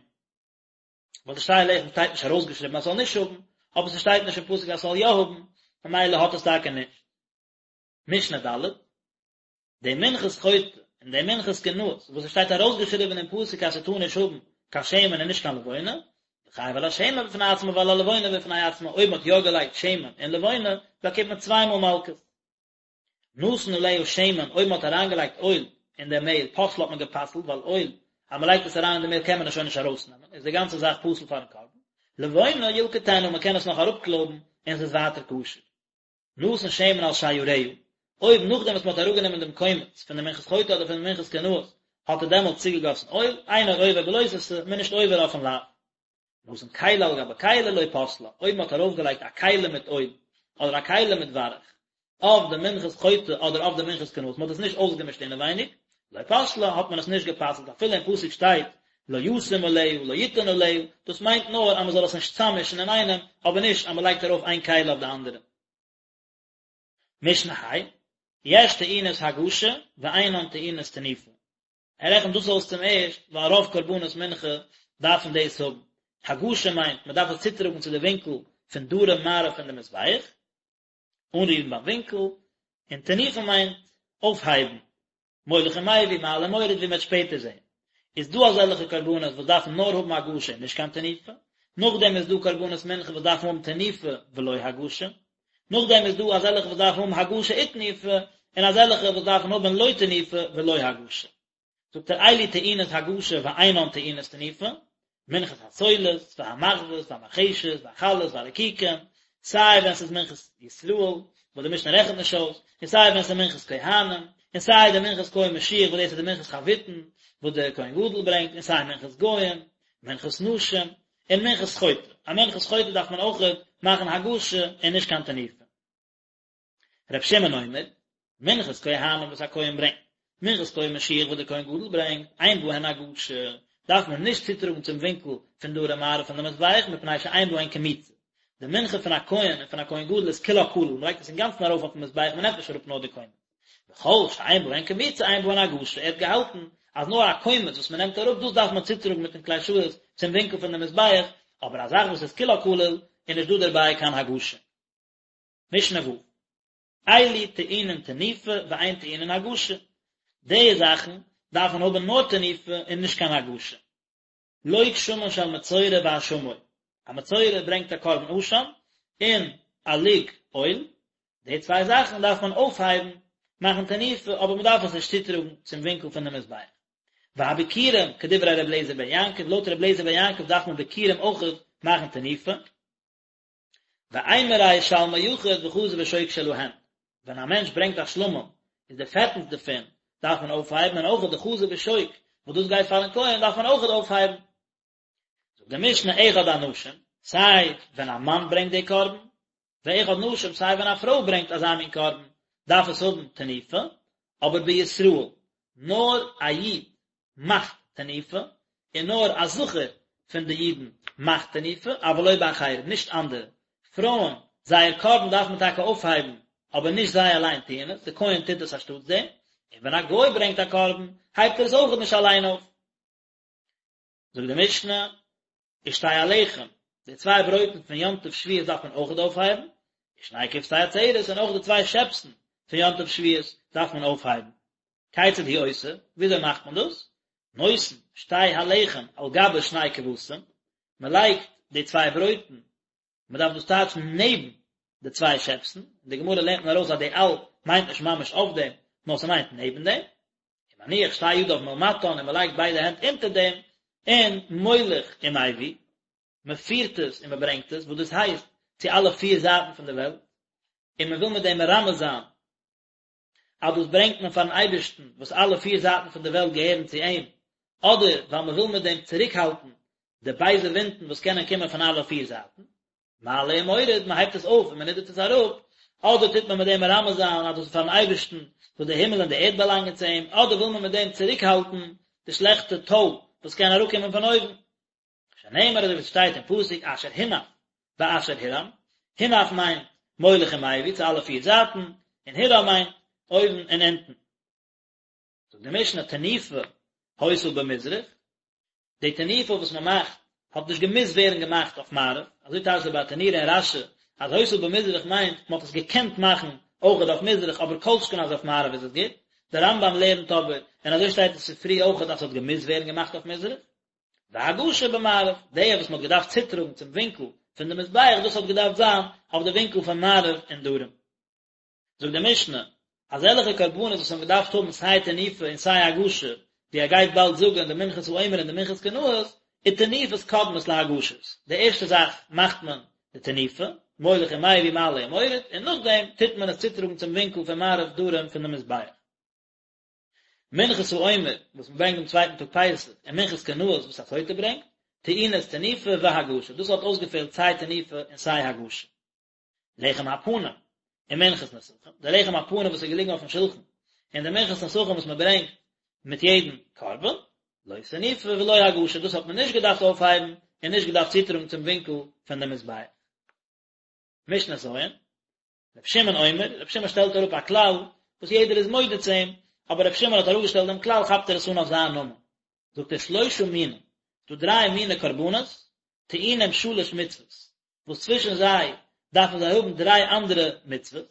ווייל די שתי הלחם שטייט נישט ארויסגעשריבן אז ס'זאל נישט האבן, אבער ס'שטייט נישט אין פסוק אז ס'זאל יא האבן, ממילא האט עס טאקע נישט. משנה ד', די מנחת חוטא און די מנחת קנאות וואס עס שטייט ארויסגעשריבן אין פסוק אז ס'טאר נישט האבן קיין שמן און נישט קיין לבונה, חייב על השמן בפני עצמו ועל הלבונה בפני עצמה, אויב מ'האט יא געלייגט שמן און לבונה, באקומט מען צוויי מאל מלקות. נתן עליה שמן, אויב מען האט אריינגעלייגט אויל אין די מעהל, פסלה האט מען גע'פסל'ט, ווייל אויל, אז מען לייגט עס אריין אין די מעהל קען מען עס שוין נישט ארויסנעמען, איז די גאנצע זאך פסול פארן קרבן. לבונה ילקטנה, מען קען עס נאך אראפקלויבן און עס איז ווייטער כשר. נתן שמן על שיריה. אויב נאכדעם וואס מען האט אראפגענומען דעם קומץ פון די מנחת חוטא אדער פון די מנחת קנאות האט ער דעמאלט צוגעגאסן אויל, אינו עובר בלא תעשה, מען איז נישט עובר אויפן לאו. נתן כלי על גבי כלי לא פסלה, אויב מען האט ארויפגעלייגט א כלי מיט אויל, אדער א כלי מיט ווארך, אויף די מנחת חוטא אדער אויף די מנחת קנאות, מען האט עס נישט אויסגעמישט אינעווייניג, לא פסלה, האט מען עס נישט גע'פסל'ט, אפילו אין פסוק שטייט לא ישים עליה, לא יתן עליה, דאס מיינט נאר אז מען זאל עס נישט צאממישן אינאיינעם, אבער נישט אז מען לייגט ארויף איין כלי אויף די אנדערע. משנה ה', יש טעונות הגשה ואינן טעונות תנופה. ער רעכנט דאס אויס צום ערשט ווייל רוב קרבנות מנחה דארפן דאס האבן. הגשה מיינט מען דארף עס צוטראגן צו די ווינקל פון דרום מערב פון די מזבח, אנרירן ביים ווינקל, און תנופה מיינט אויפהייבן, מוליך ומביא, מעלה ומוריד ווי מען וועט שפעטער זען. איז דא אזעלכע קרבנות וואס דארפן נאר האבן הגשה און נישט קיין תנופה, נאכדעם איז דא קרבנות מנחה וואס דארפן האבן תנופה ולא הגשה, נאכדעם איז דא אזעלכע וואס דארפן האבן הגשה ותנופה, און אזעלכע וואס דארפן האבן לא תנופה ולא הגשה. זאגט ער אלו טעונות הגשה ואינן טעונות תנופה, מנחת הסולת, והמחבת, והמרחשת, והחלות, והרקיקים, סיי ווען ס'איז מנחת ישראל, וואס די משנה רעכנט נישט אויס, און סיי ווען ס'איז מנחת כהנים, און סיי די מנחת כהן משיח וואס דאס איז די מנחת חביתין וואס דער כהן גדול ברענגט, און סיי מנחת גוים, מנחת נשים, און מנחת חוטא. א מנחת חוטא דארף מען אויכעט מאכן הגשה און נישט קיין תנופה. ר' שמעון אומר, מנחת כהנים וואס א כהן ברענגט, מנחת כהן משיח וואס דער כהן גדול ברענגט, אין בהן הגשה, דארף מען נישט צוטראגן צום ווינקל פון דרום מערב פון די מזבח מפני שאין בהן קמיצה. די מנחה פון א כהן און פון א כהן גדול איז כולה כליל, מען לייגט עס אינגאנצן ארויף אויפן מזבח, מען נעמט נישט אראפ נאר די קומץ. וכל שאין בהן קמיצה אין בהן הגשה, ער האט געהאלטן אז נאר א קומץ וואס מען נעמט אראפ דאס דארף מען צוטראגן מיטן כלי שרת צום ווינקל פון די מזבח, אבער א זאך וואס איז כולה כליל איז נישט דא דערביי קיין הגשה. משנה ו', אלו טעונין תנופה ואין טעונין הגשה, די זאכן דארפן האבן נאר תנופה און נישט קיין הגשה. לוג שמן של מצורע ואשמו, א מצורע ברענגט א קרבן אשם און א לוג אויל, די צוויי זאכן דארף מען אויפהייבן, מאכן תנופה, אבער מען דארף עס נישט צוטראגן צום ווינקל פון די מזבח. והביכורים, כדברי ר' אליעזר בן יעקב, לויט ר' אליעזר בן יעקב דארף מען ביכורים אויכעט מאכן תנופה. ואימורי שלמי יחיד וחזה ושוק שלהן, ווען א מענטש ברענגט א שלמים איז די פעטנס דערפון דארף מען אויפהייבן און אויך די חזה ושוק וואס דאס גייט פארן כהן דארף מען אויך אויפהייבן. זאגט די משנה אחד אנשים, סיי ווען א מאן ברענגט די קרבן, ואחד נשים סיי ווען א פרוי ברענגט אזא מין קרבן דארף עס האבן תנופה, אבער בישראל נאר א איד מאכט תנופה, און נאר א זכר פון די אידן מאכט תנופה, אבל לא באחרים, נישט אנדערע. פרויען, זייער קרבן דארף מען טאקע אויפהייבן, אבער נישט זיי אליין טוען עס, די כהן טוט עס אנשטאטס דעם, און ווען א גוי ברענגט א קרבן, הייבט ער עס אויכעט נישט אליין אויף. זאגט די משנה, ושתי הלחם, די צוויי ברויטן פון יום טוב שבועות דארף מען אויכעט אויפהייבן, ושני כבשי עצרת, און אויך די צוויי שעפסן פון יום טוב שבועות דארף מען אויפהייבן. כיצד הוא עושה, וויאזוי מאכט מען דאס? נותן שתי הלחם על גבי שני כבשים, מען לייגט די צוויי ברויטן, מען דארף דאס טייטשן נעבן די צוויי שעפסן, אין די גמרא לערנט מען ארויס אז די על מיינט נישט ממש אויף דעם, נאר ס'מיינט נעבן דעם, ומניח שתי ידיו מלמטן און מען לייגט ביידע הענט אונטער דעם, און מוליך ומביא, מען פירט עס און מען ברענגט עס, וואס דאס הייסט צו אלע פיר זייטן פון די וועלט, און מען וויל מיט דעם מרמז זיין אז דאס ברענגט מען פארן אייבערשטן וואס אלע פיר זייטן פון די וועלט געהערן צו אים, אדער ווייל מען וויל מיט דעם צוריקהאלטן די בייזע ווינטן וואס קענען קומען פון אלע פיר זייטן. מעלה ומוריד, מען הייבט עס אויף און מען נידערט עס אראפ, אדער טוט מען מיט דעם מרמז זיין אז דאס איז פארן אייבערשטן וואס די הימל און די ערד באלאנגען צו אים, אדער וויל מען מיט דעם צוריקהאלטן די שלעכטע טוי וואס קען אראפקומען פון אויבן. שנאמר אזוי ווי עס שטייט אין פסוק אשר הונף ואשר הורם, הונף מיינט מוליך ומביא צו אלע פיר זייטן, און הורם מיינט אויבן און אונטן. זאגט די משנה תנופה היתה במזרח, די תנופה וואס מען מאכט האט נישט געמוזט ווערן געמאכט אויף מערב, אזוי טייטשט דער ברטנורא און רש"י אז היתה במזרח מיינט מען האט עס געקענט מאכן אויכעט אויף מזרח אבער כל שכן אז אויף מערב איז עס גוט, דער רמב"ם לערנט אבער, און אזוי שטייט אין ספרי אויכעט אז עס האט געמוזט ווערן געמאכט אויף מזרח. והגשה במערב, די וואס מען האט געדארפט צוטראגן צום ווינקל פון די מזבח, דאס האט געדארפט זיין אויף די ווינקל פון מערב און דרום. זאגט די משנה, אזעלכע קרבנות וואס האבן געדארפט האבן סיי תנופה און סיי הגשה, ווי ער גייט באלד זאגן די מנחת העומר און די מנחת קנאות, ותנופות קודמות להגשות, די ערשטע זאך מאכט מען די. די תנופה, מוליך ומביא מעלה ומוריד, און נאכדעם טוט מען עס צוטראגן צום ווינקל פון מערב דרום פון די מזבח. מנחת העומר וואס מען ברענגט דעם צווייטן טאג פסח, און מנחת קנאות וואס א סוטה ברענגט, טעונות תנופה והגשה, דאס האט אויסגעפעלט סיי תנופה און סיי הגשה. לחם הפנים און מנחת נסכים, די לחם הפנים וואס איז געליגן אויפן שולחן, און די מנחת נסכים וואס מען ברענגט מיט יעדן קרבן, לא תנופה ולא הגשה, דאס האט מען נישט געדארפט אויפהייבן און נישט געדארפט צוטראגן צום ווינקל פון די מזבח. משנה ז', רבי שמעון אומר, רבי שמעון שטעלט אראפ א כלל וואס יעדער איז מודה צו אים, אבער רבי שמעון האט אראפגעשטעלט דעם כלל כאפט ער עס אן אויף זיין נאמען. זאגט ער שלושה מינים, ס'דא דריי מיני קרבנות, טעונים שלש מצוות, וואס צווישן זיי דארפן זיי האבן דריי אנדערע מצוות,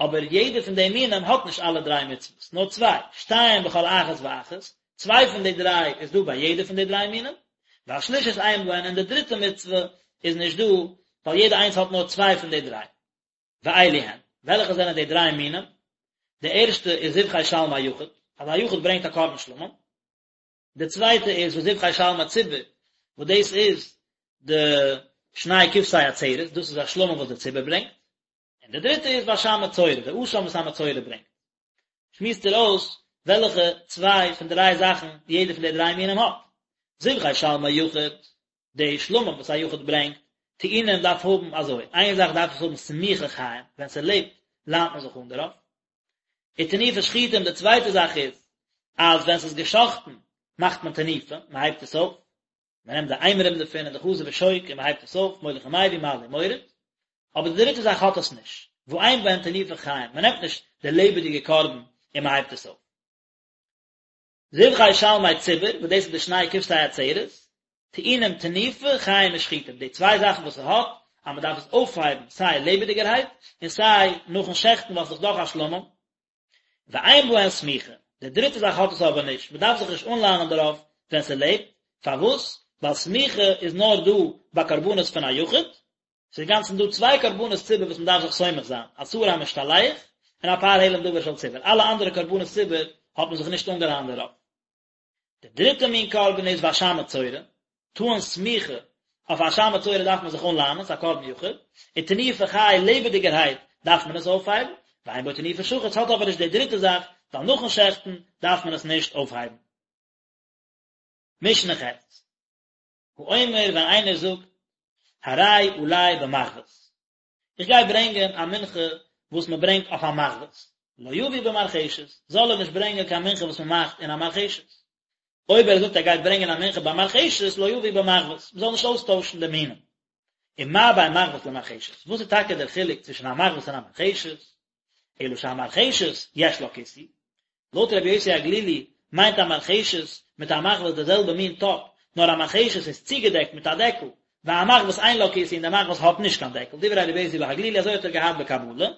אבער יעדער פון די מינים האט נישט אלע דריי מצוות, נאר צוויי, שתיים בכל אחת ואחת, צוויי פון די דריי איז דא ביי יעדע פון די דריי מינים, והשלישית אין בהן און די דריטע מצוה איז נישט דא, ווייל יעדע איינס האט נאר צוויי פון די דריי. ואלו הן, וועלכע זענען די דריי מינים? די ערשטע איז זבחי שלמי יחיד, אז א יחיד ברענגט א קרבן שלמים, די צווייטע איז וזבחי שלמי ציבור, וואס דאס איז די שני כבשי עצרת, דאס איז א שלמים וואס די ציבור ברענגט, און די דריטע איז ואשם מצורע, די אשם וואס א מצורע ברענגט. שמועסט ער אויס וועלכע צוויי פון דריי זאכן יעדע פון די דריי מינים האט. זבחי שלמי יחיד, די שלמים וואס א יחיד ברענגט, טעונים דארף האבן אזוי, איין זאך דארף עס האבן סמיכה חיים, ווען ס'לעבט ליינט מען זיך אן דערויף. ותנופה שחוטים, די צווייטע זאך איז, אז ווען ס'איז געשאכטן מאכט מען תנופה, מען הייבט עס אויף, מען נעמט די אימורים דערפון און די חזה ושוק און מען הייבט עס אויף, מוליך ומביא מעלה ומוריד, אבער די דריטע זאך האט עס נישט, ואין בהן תנופה חיים, מען נעמט נישט די לעבעדיגע קרבן און מען הייבט עס אויף. זבחי שלמי ציבור, וואס דאס איז די שני כבשי עצרת, טעונים תנופה, חיים ושחוטים, די צוויי זאכן וואס ס'האט, אז מ'דארף עס אויפהייבן סיי לעבעדיגערהייט, און סיי נאכן שעכטן ווייל ס'איז דאך א שלמים. ואין בהן סמיכה, די דריטע זאך האט עס אבער נישט, מ'דארף זיך נישט אנליינען דערויף ווען ס'לעבט, פארוואס? ווייל סמיכה איז נאר דא ביי קרבנות פון א יחיד, ס'איז אינגאנצן דא צוויי קרבנות ציבור וואס מ'דארף זיך סומך זיין, א שעיר המשתלח און א פר העלם דבר של ציבור, אלע אנדערע קרבנות ציבור האט מען זיך נישט אנגעליינט דערויף. די דריטע מין קרבן איז ואשם מצורע, טעון סמיכה, אויף אשם מצורע דארף מען זיך אנליינען, ס'איז א קרבן יחיד, און תנופה חי לעבעדיגערהייט דארף מען עס אויפהייבן, ואין בו תנופה שחוט ס'האט אבער נישט די דריטע זאך, ווייל נאכן שעכטן דארף מען עס נישט אויפהייבן. משנה ח'. האומר ווען איינער זאגט הרי עלי במחבת, איך גיי ברענגען א מנחה וואס מען ברענגט אויף א מחבת, לא יביא במרחשת, זאל ער נישט ברענגען קיין מנחה וואס מען מאכט אין א מרחשת. אויב ער זאגט ער גייט ברענגען א מנחה במרחשת, לא יביא במחבת, מען זאל נישט אויסטוישן די מינים. ומה בין מחבת למרחשת, וואס איז טאקע דער חילוק צווישן א מחבת און א מרחשת? אלא שהמרחשת יש לה כיסוי, לויט רבי יוסי הגלילי מיינט א מרחשת מיט א מחבת די זעלבע מין טאפ, נאר א מרחשת איז צוגעדעקט מיט א דעקל, והמחבת אין לה כיסוי און די מחבת האט נישט קיין דעקל, דברי רבי יוסי בהגלילי אזוי האט ער געהאט בקבלה.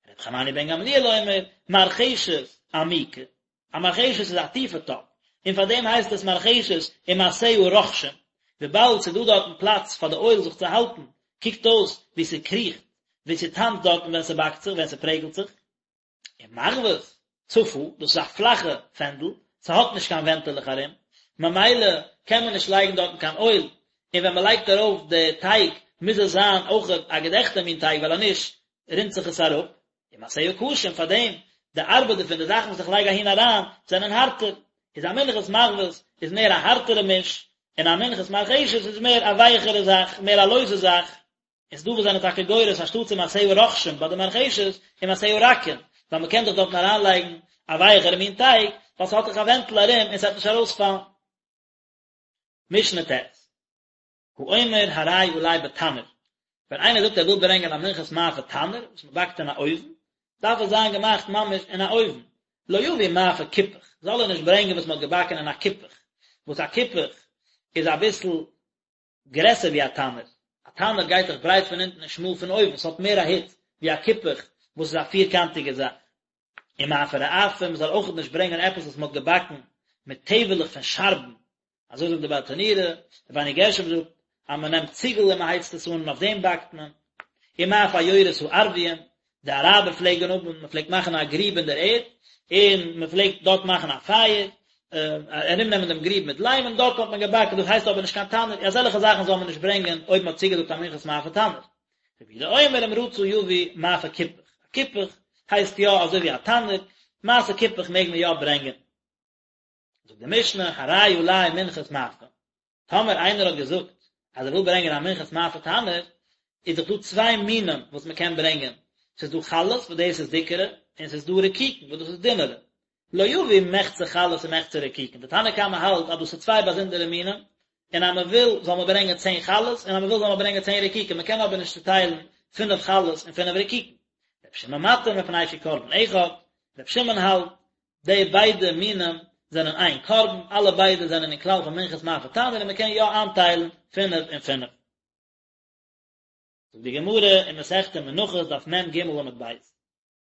רבי חנניה בן גמליאל אומר, מרחשת עמוקה, א מרחשת איז א טיפע טאפ, און פאר דעם הייסט עס מרחשת ומעשיה רוחשין, וויבאלד ס'איז דא דארטן פלאץ פאר די אויל זיך צו האלטן, קוקט אויס ווי ס'קריכט, ווי ס'טאנצט דארטן ווען ס'באקט זיך, ווען ס'פרעגלט זיך. און מחבת צפה, דאס איז א פלאכע פענדל, ס'האט נישט קיין ווענטעלעך ארום, ממילא קען מען נישט לייגן דארטן קיין אויל, און ווען מ'לייגט ארויף די טייג מוז עס זיין אויכעט א געדעכטע מין טייג ווייל אז נישט רינט זיך עס אראפ, ומעשיה קשים, פאר דעם די ארבעט דערפון, די זאכן וואס איך לייג אהין אריין, זענען הארטער, איז א מנחת מחבת איז מער א הארטערע מיש, און א מנחת מרחשת איז מער א ווייכערע זאך, מער א לויזע זאך. איז דא וואס זענען טאקע גורס אנשטאט ומעשיה רוחשין ביי די מרחשת ומעשיה רכין, ווייל מ'קען דאך דארטן אריינלייגן א ווייכערע מין טייג, ווייל ס'האט דאך א ווענטל ארום און ס'וועט נישט ארויספאלן. משנה ט'. האומר הרי עלי בתנור, ווען איינער זאגט ער וויל ברענגען א מנחת מאפה תנור, וואס מען באקט אין א אויוון, דארף עס זיין געמאכט ממש אין א אויוון, לא יביא מאפה כיפוך, זאל ער נישט ברענגען וואס מען האט געבאקן אין א כיפוך, וואס א כיפוך איז אביסל גרעסער ווי א תנור, א תנור גייט דאך ברייט פון אונטן און שמאל פון אויבן, עס האט מער א היץ ווי א כיפוך וואס איז א פירקאנטיגע זאך. ומאפה רעפים, מען זאל אויכעט נישט ברענגען עפעס וואס מען האט געבאקן מיט טעוועלעך פון שארבן, אזוי זאגט די ברטנורא, רבינו גרשום זאגט אז מען נעמט ציגל און מען הייצט עס אן און אויף דעם באקט מען. ומאפה עיירות הערביים, די אראבער פלעגן האבן, מען פלעגט מאכן א גריב אין דער ערד, און מען פלעגט דארט מאכן א פייער. ארומנעמען דעם גריב מיט ליים און דארט האט מען געבאקן, דאס הייסט אבער נישט קיין תנור, אזעלכע זאכן זאל מען נישט ברענגען אויב מען האט צוגעזאגט א מנחת מאפה תנור. רבי יהודה אומר אם רצה יביא מאפה כיפח, א כיפח הייסט יא אזוי ווי א תנור, מעשה כיפח מעג מען יא ברענגען. זאגט די משנה, הרי עלי מנחת מאפה, טאמער איינער האט געזאגט אז ער וויל ברענגען א מנחת מאפה תנור, איז דאך דא צוויי מינים וואס מען קען ברענגען, ס'איז דא חלות וואס דאס איז דיקערע, און ס'איז דא רקיקין וואס דאס איז דינערע. לא יביא מחצה חלות ומחצה רקיקין, די תנא קמא האלט אז דאס איז צוויי באזונדערע מינים, און אז מען וויל זאל מען ברענגען צען חלות, און אז מען וויל זאל מען ברענגען צען רקיקין, מען קען אבער נישט צוטיילן פינף חלות און פינף רקיקין. רבי שמעון מתיר מפני שהוא קרבן אחד, רבי שמעון האלט די ביידע מינים זענען איין קרבן, אלע ביידע זענען אין כלל פון מנחת מאפה תנור און מען קען יא איינטיילן פינף און פינף. זאגט די גמרא אין מסכת מנחות דף מ"ג עמוד ב',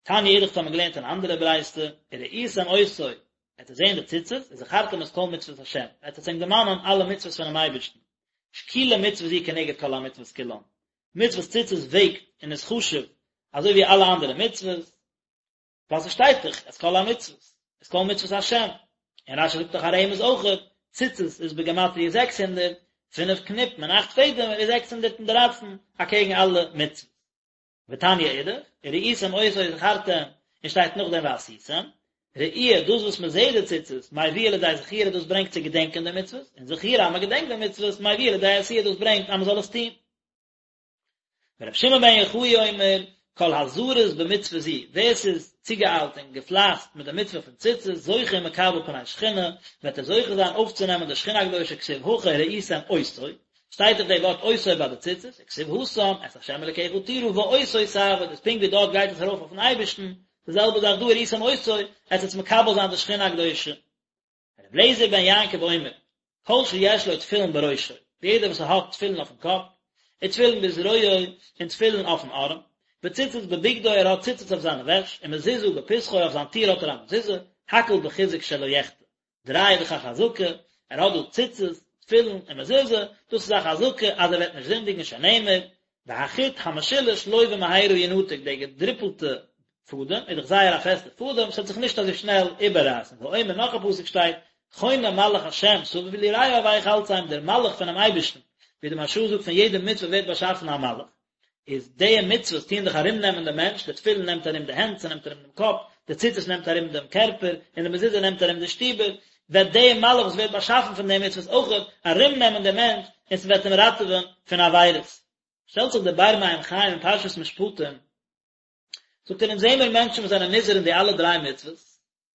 תניא אידך האט מען געלערנט אן אנדערע ברייתא, וראיתם אותו, עט עטס זען די ציצית, וזכרתם את כל מצוות השם, עט עטס ענק דערמאנען אלע מצוות פונעם אייבערשטן, שקולה מצוה זו כנגד כל המצוות כולן, מצוות ציצית וועגט און איז חשוב אזוי ווי אלע אנדערע מצוות, ווייל ס'שטייט דאך את כל המצוות, את כל מצוות השם, און רש"י זאגט דאך א רמז אויכעט, ציצית איז בגימטריא 600, פינף קניפן און אכט פעדעמער איז 613 אקעגן אלע מצוות. ותניא אידך, וראיתם אותו וזכרתם, און שטייט נאכדעם ועשיתם, ראי' דאס וואס מען זעט די ציצית, מביאה לידי זכירה דאס ברענגט צו געדענקען די מצוות, און זכירה אז מען געדענקט די מצוות, מביאה לידי עשייה דאס ברענגט אז מען זאל עס טון. ורבי שמעון בן יוחאי אומר, כל הזריז במצוה זו, ווער ס'איז צוגעאיילט און געפלייסט מיט די מצוה פון ציצית, זוכה ומקבל פני שכינה, וועט ער זוכה זיין אויפצונעמען די שכינה הקדושה כתיב הכא וראיתם אותו, שטייט דאך די ווארט אותו ביי די ציצית, וכתיב התם, את ה' אלקיך תירא ואותו תעבוד, איז פונקט ווי דארט גייט עס ארויף אויפן אייבערשטן, די זעלבע זאך דא וראיתם אותו, עטס וועטס מקבל זיין די שכינה הקדושה. רבי אליעזר בן יעקב אומר, כל שיש לו תפילין בראשו, יעדער וואס האט תפילין אויפן קאפ, ותפילין בזרועו, און תפילין אויפן ארעם, וציצית בבגדו, ער האט ציצית אויף זיינע וועש, ומזוזה בפתחו, אויף זיין טיר האט ער א מזוזה, הכל בחיזוק שלא יחטא. דריי איז דאך א חזקה, ער האט דא ציצית, תפילין און מזוזה, דאס איז א חזקה אז ער וועט נישט זינדיגן שנאמר, והחוט המשולש לא במהרה ינתק, די געדריפלטע פאדעם איז דאך זייער א פעסטע פאדעם, ס'וועט זיך נישט אזוי שנעל איבעררייסן, ואומר נאך א פסוק שטייט, חונה מלאך השם סביב ליראיו ויחלצם, דער מלאך פונעם אייבערשטן, ווי די מהרש"א זאגט פון יעדע מצוה ווערט באשאפן א מלאך, איז די מצוות טוען דאך ארום נעמען דעם מענטש, די תפילין נעמט ארום די הענט, ס'נעמט ארום דעם קאפ, די ציצית נעמט ארום דעם קערפער, און די מזוזה נעמט ארום די שטיבער, וועט די מלאך וואס ווערט באשאפן פון די מצוות אויכעט ארום נעמען דעם מענטש, און ס'וועט אים ראטעווען פון עבירות. שטעלט זיך דער באר מים חיים אין פרשת משפטים, זאגט ער אונז זעמיר מענטשן וואס זענען נזהר אין די אלע דריי מצוות,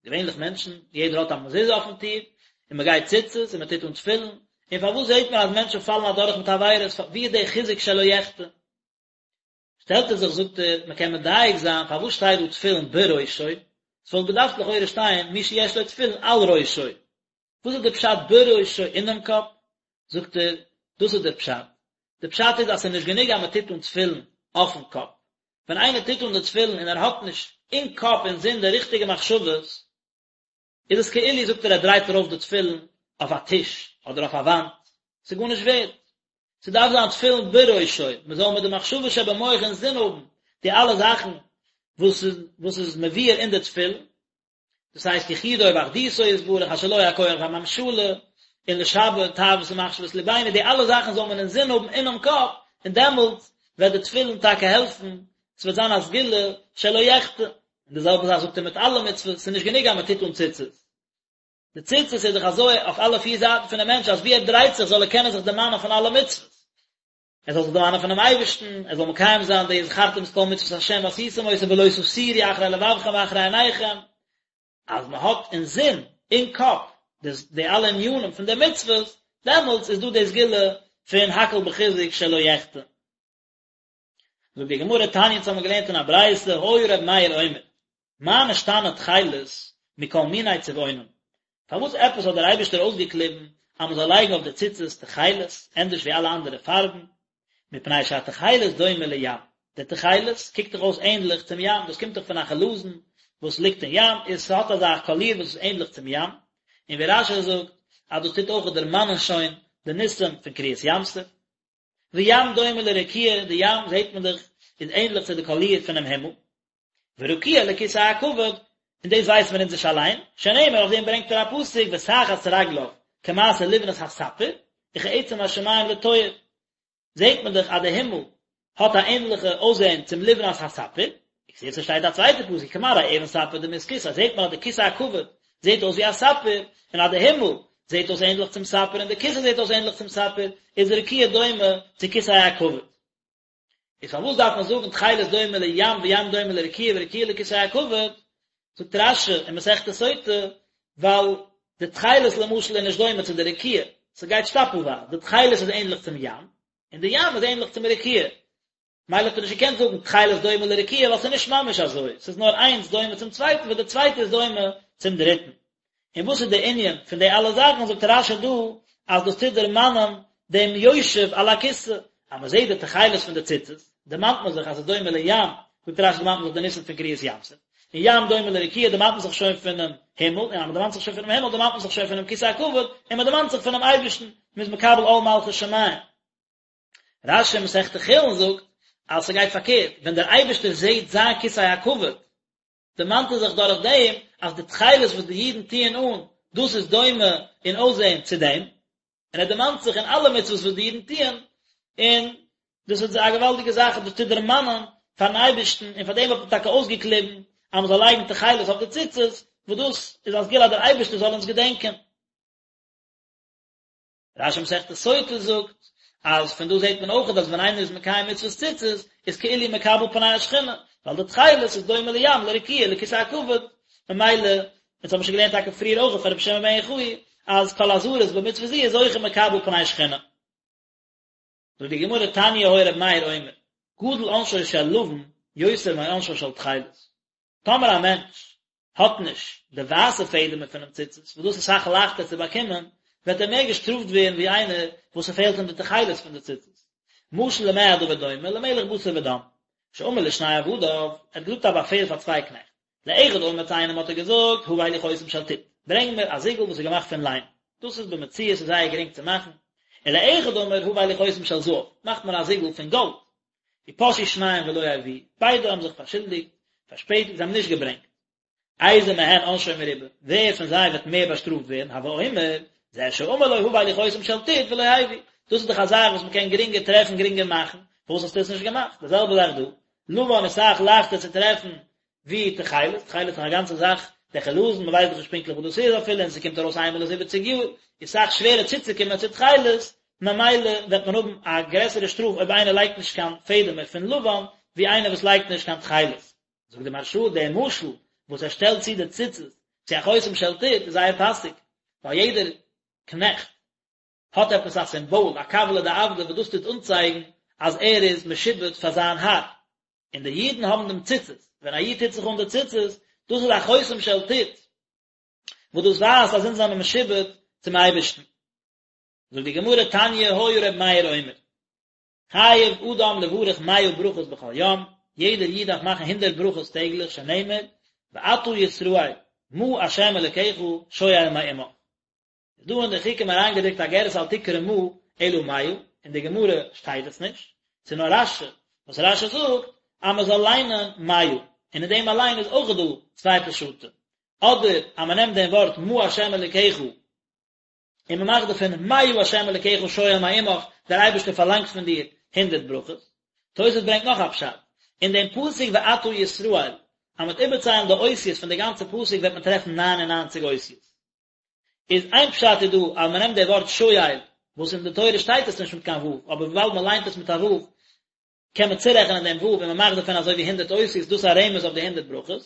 געווענליך מענטשן, יעדער האט א מזוזה אויפן טיר, און מען גייט ציצית און מען טוט אן תפילין, און פארוואס זעט מען אז מענטשן פאלן אדורך מיט עבירות, ווי איז דער חיזוק שלא יחטא? שטעלט ער זיך זאגט ער, מען קען מדייק זיין פארוואס שטייט דא תפילין בראשו, עס וואלט געדארפט לכאורה שטיין מי שיש לו תפילין על ראשו, וואס איז די פשט בראשו אינעם קאפ? זאגט ער, דאס איז דער פשט, די פשט איז אז ס'איז נישט גענוג אז מען טוט אן תפילין אויפן קאפ, ווען איינער טוט אן די תפילין און ער האט נישט אין קאפ אין זין די ריכטיגע מחשבות, איז עס כאילו זאגט ער ער דרייט ארויף די תפילין אויף א טיש אדער אויף א וואנט, ס'איז גארנישט ווערד. ס'דארף זיין תפילין בראשו, מ'זאל מיט די מחשבה שבמח אין זין האבן די אלע זאכן וואס איז וואס איז מבואר אין די תפילין, דאס הייסט יחודו ואחדותו יתברך אשר לו הכח והממשלה, און לשבר תאוות ומחשבות לבינו, די אלע זאכן זאל מען אינזין האבן אינעם קאפ, און דעמאלטס וועט די תפילין טאקע העלפן, עס וועט זיין א סגולה שלא יחטא, און די זעלבע זאך זאגט ער מיט אלע מצוות, ס'איז נישט גענוג אז מען טוט אן ציצית, די ציצית איז דאך אזוי אויף אלע פיר זייטן פונעם מענטש אז ווי ער דרייט זיך זאל ער קענען זיך דערמאנען פון אלע מצוות. ער זאל זיך דערמאנען פונעם אייבערשטן, ער זאל מקיים זיין די וזכרתם את כל מצוות השם ועשיתם אותם ולא תתורו אחרי לבבכם ואחרי עיניכם, אז מען האט אין זין, אין קאפ, די אלע ענינים פון די מצוות, דעמאלטס איז דא די סגולה פון הכל בחיזוק שלא יחטא. זאגט די גמרא תניא אונז האבן געלערנט אין א ברייתא היה ר' מאיר אומר מה נשתנה תכלת מכל מיני צבעונים פארוואס עפעס האט דער אייבערשטער אויסגעקליבן אז מען זאל לייגן אויף די ציצית תכלת ענדערש ווי אלע אנדערע פארבן מפני שהתכלת דומה לים די תכלת קוקט דאך אויס ענדליך צום ים דאס קומט דאך פון א חלזון וואס ליגט אין ים און ס'האט אזא קאליר וואס איז ענדליך צום ים און ווי רש"י זאגט אז דאס טוט אויך דערמאנען שוין די ניסים פון קריעת ים סוף וים דומה לרקיע, די ים זעט מען דאך איז ענדליך צו די קאליר פונעם הימל, ורקיע לכסא הכבוד, און דאס ווייסן מיר אונז נישט אליין, שנאמר אויף דעם ברענגט ער א פסוק ותחת רגליו כמעשה לבנת הספיר, וכעצם השמים לטוהר, זעט מען דאך אז די הימל האט א ענדליכע אויסזען צום לבנת הספיר, וכתיב ס'שטייט א צווייטע פסוק כמראה אבן ספיר דמות כסא, זעט מען אז די כסא הכבוד זעט אויס ווי א ספיר, און אז די הימל זעט אויס ענדליך צום ספיר און די כסא זעט אויס ענדליך צום ספיר, איז רקיע דומה צו כסא הכבוד. איז פארוואס דארף מען זאגן תכלת דומה לים וים דומה לרקיע ורקיע לכסא הכבוד, זאגט רש"י אין מסכת סוטה, ווייל די תכלת למשל איז נישט דומה צו די רקיע, ס'גייט שטאפלווייז, די תכלת איז ענדליך צום ים, און די ים איז ענדליך צום רקיע, מילא האט ער נישט געקענט זאגן תכלת דומה לרקיע ווייל ס'איז נישט ממש אזוי, ס'איז נאר איינס דומה צום צווייטן וואס די צווייטע איז דומה צום דריטן. און וואס איז די ענין פון די אלע זאכן, זאגט רש"י דא אז דאס טוט דערמאנען דעם יושב על הכסא, אז מען זעט די תכלת פון די ציצית, דערמאנט מען זיך אז ס'איז דומה לים, זאגט רש"י דערמאנט מען זיך די ניסים פון קריעת ים סוף, און ים דומה לרקיע דערמאנט מען זיך שוין פונעם הימל, און אז מען דערמאנט זיך שוין פונעם הימל דערמאנט מען זיך שוין פונעם כסא הכבוד, און מען דערמאנט זיך פונעם אייבערשטן, מען איז מקבל עול מלכות שמים. רש"י אין מסכת חולין זאגט אז ס'גייט פארקערט, ווען דער אייבערשטער זעט זיין כסא הכבוד, דערמאנט ער זיך דורך דעם אז די תכלת וואס די אידן טוען אן, דאס איז דומה אין אויסזען צו דעם, און ער דערמאנט זיך אין אלע מצוות וואס די אידן טוען, און דאס איז א געוואלדיגע זאך אז דאס טוט דערמאנען פארן אייבערשטן, און פאר דעם האט מען טאקע אויסגעקליבן אז מען זאל לייגן תכלת אויף די ציצית, וואס דאס איז א סגולה אז דער אייבערשטער זאל אונז געדענקען. רש"י מסכת סוטה זאגט אז פון דא זעט מען אויך אז ווען איינער איז מקיים מצוות ציצית איז כאילו מקבל פני השכינה, ווייל די תכלת איז דומה לים לרקיע לכסא הכבוד, ממילא, אונז האבן שוין געלערנט טאקע פריער אויך פון רבי שמעון בן יוחאי אז כל הזריז במצוה זו איז זוכה מקבל פני שכינה. זאגט די גמרא תניא היה רבי מאיר אומר, גדול עונשו של לבן יותר מעונשו של תכלת. טאמער א מענטש האט נישט די ווייסע פעדעמער פונעם ציצית, וואס דאס איז אסאך לייכטער צו באקומען, וועט ער מער געשטראפט ווערן ווי איינער וואס ס'פעלט אים די תכלת פון די ציצית. משל למה הדבר דומה, למלך בשר ודם, שאמר לשני עבדיו, ער האט געזאגט א באפעל פאר צוויי קנעכט, לאחד אמר צו איינעם האט ער געזאגט, הבא לי חותם של טיט, ברענג מיר א זיגל וואס איז געמאכט פון ליים, דאס איז במציאות איז זייער גרינג צו מאכן, ולאחד אמר הבא לי חותם של זהב, מאך מיר א זיגל פון גאלד, ופשעו שניהם ולא הביאו, ביידע האבן זיך פארשולדיגט, פארשפעטיגט, זיי האבן נישט געברענגט. איזה מהן עונשו מרובה, ווער פון זיי וועט מער באשטראפט ווערן, הוי אומר, זה שאמר לו הבא לי חותם של טיט ולא הביא, דאס איז דאך א זאך וואס מען קען גרינגער טרעפן גרינגער מאכן, פארוואס האסטו עס נישט געמאכט? די זעלבע זאך דא, לבן איז אסאך לייכטער צו טרעפן ווי תכלת, תכלת איז דאך א גאנצע זאך, דער חלזון, מען ווייסט דאך נישט פונקטליך וואס דאס איז אפילו, און ס'קומט ארויס איינמאל אין זיבעציג יאר, איז אסאך שווערער צוצוקומען צו תכלת, ממילא וועט מען האבן א גרעסערע שטראף אויב איינער לייגט נישט קיין פעדעמער פון לבן, ווי איינער וואס לייגט נישט קיין תכלת. זאגט די מהרש"א, דער משל וואס ער שטעלט צו די ציצית צו א חותם של טיט איז זייער פאסיג, ווייל יעדער קנעכט האט עפעס א סימבאל, א כבלא דעבדא וואס דאס טוט אנצייגן אז ער איז משועבד פאר זיין האר. און די אידן האבן דעם ציצית, ווען א איד טוט זיך אן די ציצית, דאס איז א חותם של טיט, וואס דאס ווייזט אז אונז זענען משועבד צום אייבערשטן. זאגט די גמרא תניא היה ר' מאיר אומר, חייב אדם לברך מאה ברכות בכל יום, יעדער איד דארף מאכן הונדערט ברכות טעגליך, שנאמר, ועתה ישראל, מה ה' אלוקיך שואל מעמך. איז דא אין די חוקים אריינגעדרוקט א גירסא אל תקרי מה אלא מאה, אין די גמרא שטייט עס נישט, ס'איז נאר רש"י, וואס רש"י זאגט אז מען זאל ליינען מאה, און אין דעם אליין איז אויך דא צוויי פשטים, אדער אז מען נעמט דעם ווארט מה ה' אלוקיך און מען מאכט דערפון מאה ה' אלוקיך שואל מעמך, דער אייבערשטער פארלאנגט פון דיר הונדערט ברכות. תוס' ברענגט נאך א פשט, אין דעם פסוק ועתה ישראל, אז מען וועט איבערציילן די אותיות פון די גאנצע פסוק וועט מען טרעפן ניין און ניינציג אותיות. איז איין פשט איז דא אז מען נעמט די ווארט שואל וואס אין די תורה שטייט עס נישט מיט קיין ו' אבער וויבאלד מען ליינט עס מיט א ו' קען מען צורעכענען דעם ו' און מען מאכט דערפון אזוי ווי הונדערט אותיות דאס איז א רמז אויף די הונדערט ברכות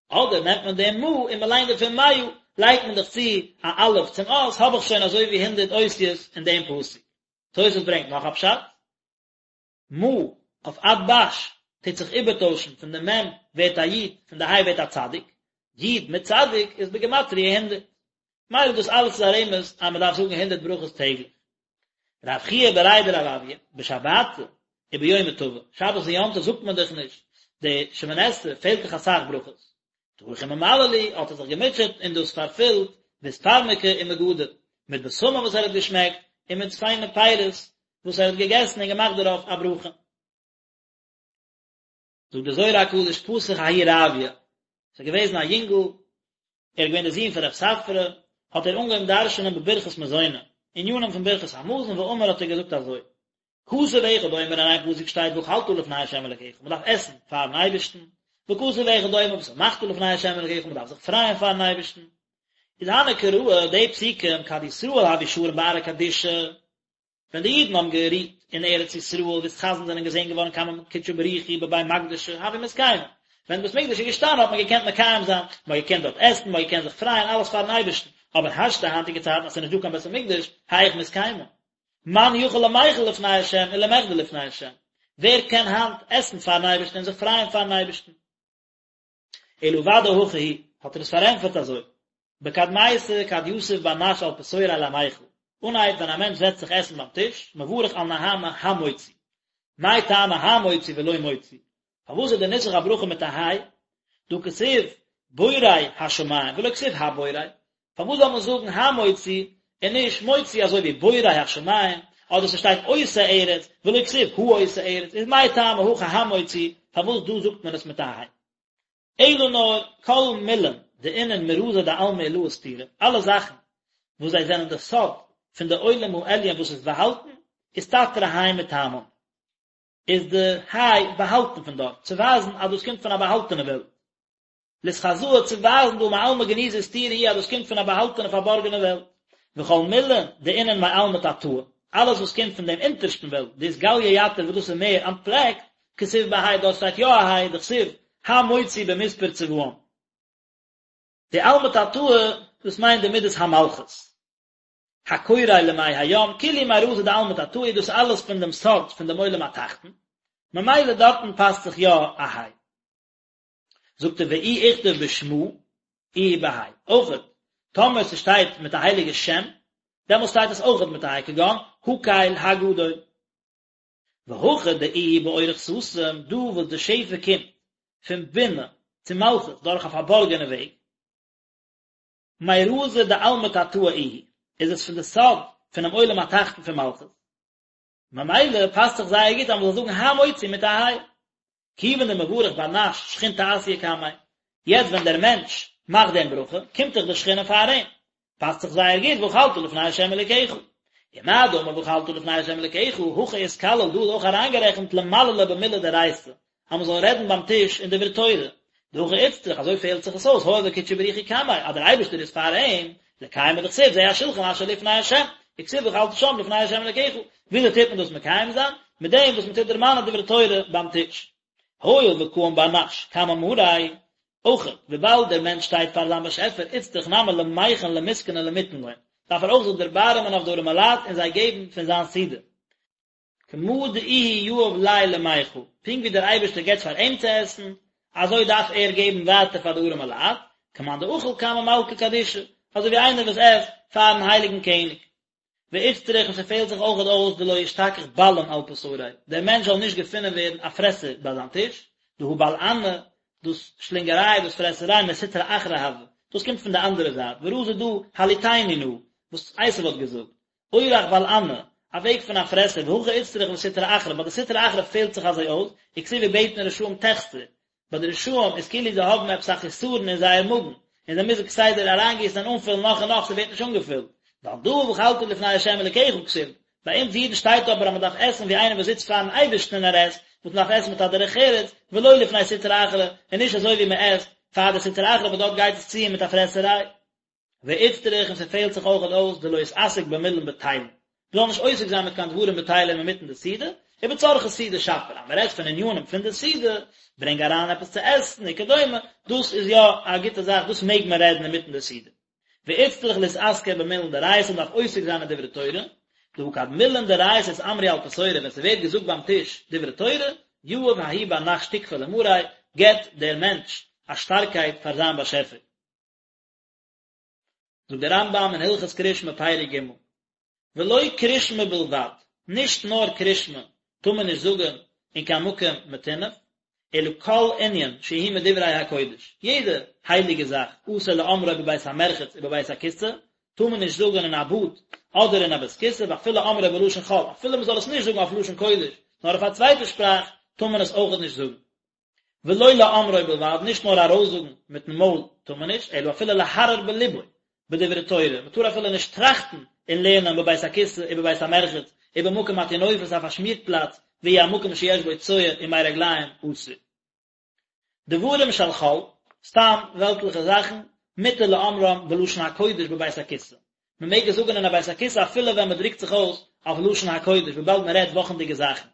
אדער נעמט מען דעם מה און מען ליינט דערפון מאה לייגט מען דאך צו א אלף צום אות האב איך שוין אזוי ווי הונדערט אותיות אין דעם פסוק. תוס' ברענגט נאך א פשט. מה אויף אתב"ש טוט זיך איבערטוישן פון די מ' ווערט א י' פון די ה' ווערט א צדיק, י' מיט צדיק איז בגימטריא הונדערט. מילא דאס אלעס איז א רמז אז מען דארף זאגן הונדערט ברכות טעגליך. רב חייא בריה דרב אויא, בשבתא וביומא טבא, שבת און יום טוב זאגט מען דאך נישט די שמונה עשרה, פעלט דאך אסאך ברכות. טרח וממלא להו, האט ער זיך געמוטשעט און דאס פארפילט, באספרמקי ומגדא, מיט בשמים וואס ער האט געשמעקט, און מיט פיינע פירות וואס ער האט געגעסן און געמאכט דערויף א ברכה. זאגט דער זוהר הקדוש פתח ההוא רביא. ס'איז געוועזן א יונגל, ער איז געווען דער זון פון רב ספרא, האט ער אנגעהויבן דרש'נען בברכת מזונא, ענינים פון ברכת המזון, ואמר האט ער געזאגט אזוי, כתוב אחד אומר אין איין פסוק שטייט ואכלת לפני ה' אלקיך, מען דארף עסן פארן אייבערשטן, וכתוב אחד אומר ושמחת לפני ה' אלקיך, מען דארף זיך פרייען פארן אייבערשטן. איז הני קראי די פסוקים כד ישראל הוו שרין בארעא קדישא, ווען די אידן האבן גערוהט אין ארץ ישראל ואתחזון זענען געזען געווארן קמי קודשא בריך הוא בבי מקדשא הוו מתקיימי, ווען בית מקדש איז געשטאנען האט מען געקענט מקיים זיין, מען האט געקענט דארט עסן, מען האט געקענט זיך פרייען, אלעס פארן אייבערשטן, אבער השתא היינטיגע צייטן אז ס'איז נישט דא קיין בית המקדש, היאך מתקיימי? מאן יכיל למיכל לפני השם ולמחדי לפני השם, ווער קען היינט עסן פארן אייבערשטן און זיך פרייען פארן אייבערשטן? אלא ודאי הכי הוא, האט ער עס פארענטפערט אזוי, בקדמיתא כד יתיב בר נש על פתוריה למיכל, אנהייב ווען א מענטש זעצט זיך עסן ביים טיש, מברך על נהמא המוציא, מאי טעמא המוציא ולא מוציא, פארוואס איז די נוסח הברכה מיט א היי? דהא כתיב בורא השמים ולא כתיב הבורא, פארוואס זאל מען זאגן המוציא און נישט מוציא אזוי ווי בורא השמים, אדער ס'שטייט עושה ארץ ולא כתיב העושה ארץ, איז מאי טעמא הכא המוציא, פארוואס דא זאגט מען עס מיט א היי? אלא נאר כל מילין דאינון מרזא דעלמא עילאה סתירי, אלע זאכן וואס זיי זענען די סוד פון די עולם העליון וואס איז באהאלטן, אסתתרא ה' מטעמן. איז די היי באהאלטן פון דארט, צו ווייזן אז דאס קומט פון א באהאלטענע וועלט. לאתחזאה צו ווייזן דהא מעלמא גניזא וסתירא הוא אז דאס קומט פון א באהאלטענע פארבארגענע וועלט. וכל מילין דאינון מעלמא תתאה, אלעס וואס קומט פון דעם אונטערשטן וועלט, דאתגליא יתיר וואס דאס איז מער אנטפלעקט, כתיב בה' דארט שטייט יא א ה', דכתיב המוציא במספר צבאם. די עלמא תתאה, דאס מיינט די מידת המלכות. הקורא למי הים, כולהו מרזא דעלמא תתאה, דאס אלעס פון דעם סוד פון דעם עולם התחתון, ממילא דארטן פאסט זיך יא א ה'. זאגט ער ואי איכתב בשמא איהו בה' אויכעט טאמער ס'שטייט מיט א הייליגע שם דעמאלס שטייט עס אויכעט מיט א ה' כגון הקל הגדול והכא דאיהו באורח סתים דא וואס די שפע קומט פון בינה צו מלכות דורך א פארבארגענע וועג מרזא דעלמא תתאה איהו איז עס פון די סוד פונעם עולם התחתון פון מלכות ממילא פאסט זיך זייער גוט אז מ'זאל זאגן המוציא מיט א ה' כיוון דמברך בר נש שכינתא אתיא קמיה, יעצט ווען דער מענטש מאכט דעם ברכה, קומט דאך די שכינה פאר אים, פאסט זיך זייער גוט ואכלת לפני ה' אלוקיך. ומה דאמר ואכלת לפני ה' אלוקיך, הכא אתכליל דא איז אויך אריינגערעכנט למללא במילי דאורייתא, אז מען זאל רעדן ביים טיש אין דברי תורה, דהכי איצטריך, אזוי פעלט זיך עס אויס, הואיל וקודשא בריך הוא קמיה, אז דער אייבערשטער איז פאר אים, לקיימא דכתיב זה השולחן אשר לפני ה', וכתיב ואכלת שם לפני ה' אלקיך, וויאזוי טוט מען דאס מקיים זיין? מיט דעם וואס מען טוט דערמאנען דברי תורה ביים טיש. הואיל וקאים בר נש קמי מאריה, אויך וויבאלד דער מענטש שטייט פאר זיין באשעפער איצטריך נמי למיחן למסכני ולמיתן לון, דארף ער אויך זיך דערבארעמען אויף די ארימע לייט און זיי געבן פון זיין סעודה. כמה דאיהו יהיב ליה למיכל, פונקט ווי דער אייבערשטער געבט פאר אים צו עסן, אזוי דארף ער געבן ווייטער פאר די ארימע לייט, כמאן דאכיל קמי מלכא קדישא, אזוי ווי איינער וואס עסט פארן הייליגן קעניג. ואיצטריך און ס'פעלט זיך אויכעט אויס דלא ישתכח בלען על פתוריה, דער מענטש זאל נישט געפונען ווערן א פרעסער ביי זיין טיש, דהא בלענא, דאס שלינגעריי, דאס פרעסעריי, מסטרא אחרא הוי, דאס קומט פון די אנדערע זייט, ורזא דא הלעיטני נא, וואס עשו האט געזאגט, אורח בלענא, א וועג פון א פרעסער, והכי איצטריך לסטרא אחרא, ביי די סטרא אחרא פעלט זיך אזוי אויס, וכתיב ובטן רשעים תחסר, ביי די רשעים איז כאילו זיי האבן עפעס א חיסרון אין זייער מאגן, און זיי מוזן כסדר אריינגיסן און אנפילן נאך און נאך, ס'ווערט נישט אנגעפילט. ועל דא ואכלת לפני ה' אלקיך כתיב, ביי אונז אידן שטייט אבער אז מ'דארף עסן ווי איינער וואס זיצט פארן אייבערשטן און ער עסט, וואס מ'דארף עסן מיט א דרך ארץ, ולא לפני סטרא אחרא, און נישט אזוי ווי מ'עסט פאר די סטרא אחרא וואס דארט גייט עס צו מיט א פרעסעריי. ואיצטריך און ס'פעלט זיך אויכעט אויס דלא יתעסק במילין בטילין, מ'זאל נישט עוסק זיין מיט קיין דברים בטלים אינמיטן די סעודה, ובצרכי סעודה שפיר, אז מ'רעדט פון עניינים פון די סעודה, ברענג אריין עפעס צו עסן וכדומה, דאס איז יא א גוטע זאך, דאס מעג מען רעדן אינמיטן די סעודה. ואיצטריך לאתעסקא במילין דאורייתא מ'דארף עוסק זיין אין דברי תורה, דהא כד מילין דאורייתא אתאמרו על פתורא ווען ס'ווערט געזאגט ביים טיש דברי תורה, יהיב ההוא בר נש תוקפא למאריה, געבט דער מענטש א שטארקייט פאר זיין באשעפער. זאגט דער רמב"ם אין הלכות קרישמע פרק ג', ולא קרישמע בלבד, נישט נאר קרישמע טאר מען נישט זאגן אין קיין מקום מטונף, אלא כל ענין שהוא מדברי הקודש, יעדע הייליגע זאך, אסור לאומרו בבית המרחץ ובבית הכסא, טאר מען נישט זאגן אין א באד אדער אין א בית כסא, ואפילו אומרו בלשון חול, אפילו מען זאל עס נישט זאגן אויף לשון קודש, נאר אויף א צווייטע שפראך, טאר מען עס אויכעט נישט זאגן. ולא לאומרו בלבד, נישט נאר ארויסזאגן מיטן מויל טאר מען נישט, אלא אפילו להרהר בלבו בדברי תורה, מען טאר אפילו נישט טראכטן אין לערנען בבית הכסא ובבית המרחץ ובמקום הטינופת א פארשמירט פלאץ והוא המקום שיש בו צואה ומי רגליים אסור. דברים של חול, סתם וועלטליכע זאכן, מותר לאומרם בלשון הקודש בבית הכסא. מען מעג עס זאגן אין א בית הכסא אפילו ווען מען דרוקט זיך אויס אויף לשון הקודש וויבאלד מען רעדט וואכנדיגע זאכן.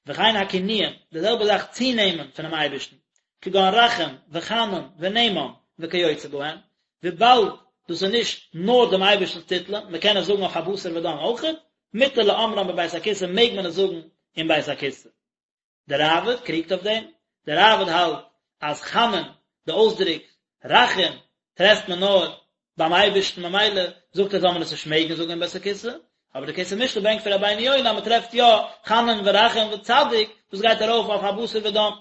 וכן הכינויים, די זעלבע זאך צונעמען פונעם אייבערשטן, כגון רחום וחנון ונאמן וכיוצא בהן, וויבאלד דאס איז נישט נאר דעם אייבערשטנ'ס טיטלען, מען קען עס זאגן אויף א בשר ודם אויכעט, מותר לאומרם בבית הכסא מעג מען עס זאגן אין בית הכסא. דער ראב"ד קריגט אויף דעם, דער ראב"ד האלט אז חנון, די אויסדרוק רחום, טרעפט מען נאר ביים אייבערשטן ממילא זאגט ער זאל מען עס נישט מעגן זאגן אין בית הכסא, אבער די כסף משנה ברענגט פון רבינו יונה אז מען טרעפט יא חנון ורחום וצדיק, דאס גייט ארויף אויף א בשר ודם.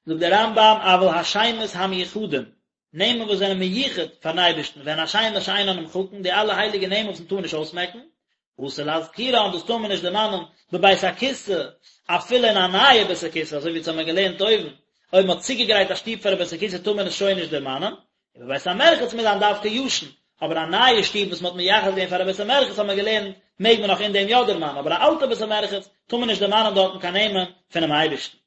זאגט דער רמב"ם אבל השמות המיוחדים, נעמען וואס זענען מיוחד פארן אייבערשטן, והן השמות שאינן נמחקין, די אלע הייליגע נעמען וואס מען טאר נישט אויסמעקן, אסור להזכירן, דאס טאר מען נישט דערמאנען בבית הכסא, אפילו אין א נייע בית הכסא, אזוי ווי אונז האבן געלערנט אויבן, אויב מען האט צוגעגרייט א שטוב פאר א בית הכסא טאר מען עס שוין נישט דערמאנען, ובבית המרחץ מוז זיין דווקא ישן, אבער א נייע שטוב וואס מען האט מייחד געווען פאר א בית המרחץ האט מען געלערנט מעג מען נאך אין דעם יא דערמאנען, אבער א אלטע בית המרחץ טאר מען נישט דערמאנען דארטן קיין נעמען פונעם אייבערשטן.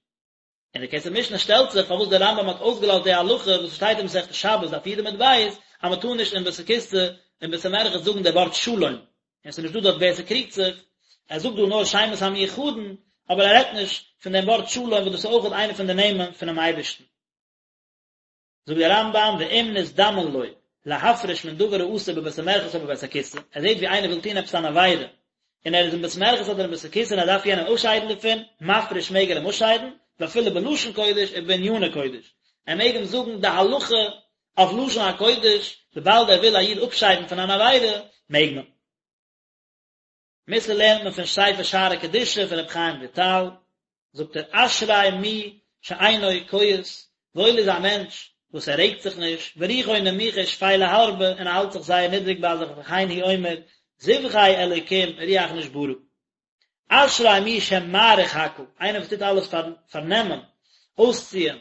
און די כסף משנה שטעלט זיך פארוואס דער רמב"ם האט אויסגעלאזט די הלכה וואס שטייט אין מסכת שבת דף י' עמוד ב' אז מען טאר נישט אין בית הכסא אין בית המרחץ זאגן די ווארט שלום, און עס איז נישט דא דארט ווער ס'קריגט זיך, ער זאגט דא נאר שמות המיוחדין, אבער ער רעדט נישט פון דעם ווארט שלום וואס דאס איז אויך איינע פון די נעמען פונעם אייבערשטן. זאגט דער רמב"ם ואם נזדמן לו להפריש מן דבר האסור בבית המרחץ או בבית הכסא, ער זעט ווי איינער וויל טון עפעס אן עבירה, און ער איז אין בית מרחץ אדער אין בית הכסא און ער דארף יענעם אפשיידן דערפון, מפריש מעג ער אים אפשיידן, ואפילו בלשון קודש ובעניני קודש, ער מעג אים זאגן די הלכה אויף לשון הקודש, וויבאלד ער וויל א איד אפשיידן פון אן עבירה, מעג מען. מוסר לערנט מען פון ספר שערי קדושה פון רבי חיים וויטאל, זאגט ער אשרי מי שאינו כועס, וואויל איז א מענטש וואס ער רעגט זיך נישט, ורוחו נמוכה ושפלה הרבה, און ער האלט זיך זייער נידריג ביי זיך וכן הוא אומר, זבחי אלוקים רוח נשברה. אשרי מי שמאריך הכל, איינער וואס טוט אלעס פארנעמען, אויסציען,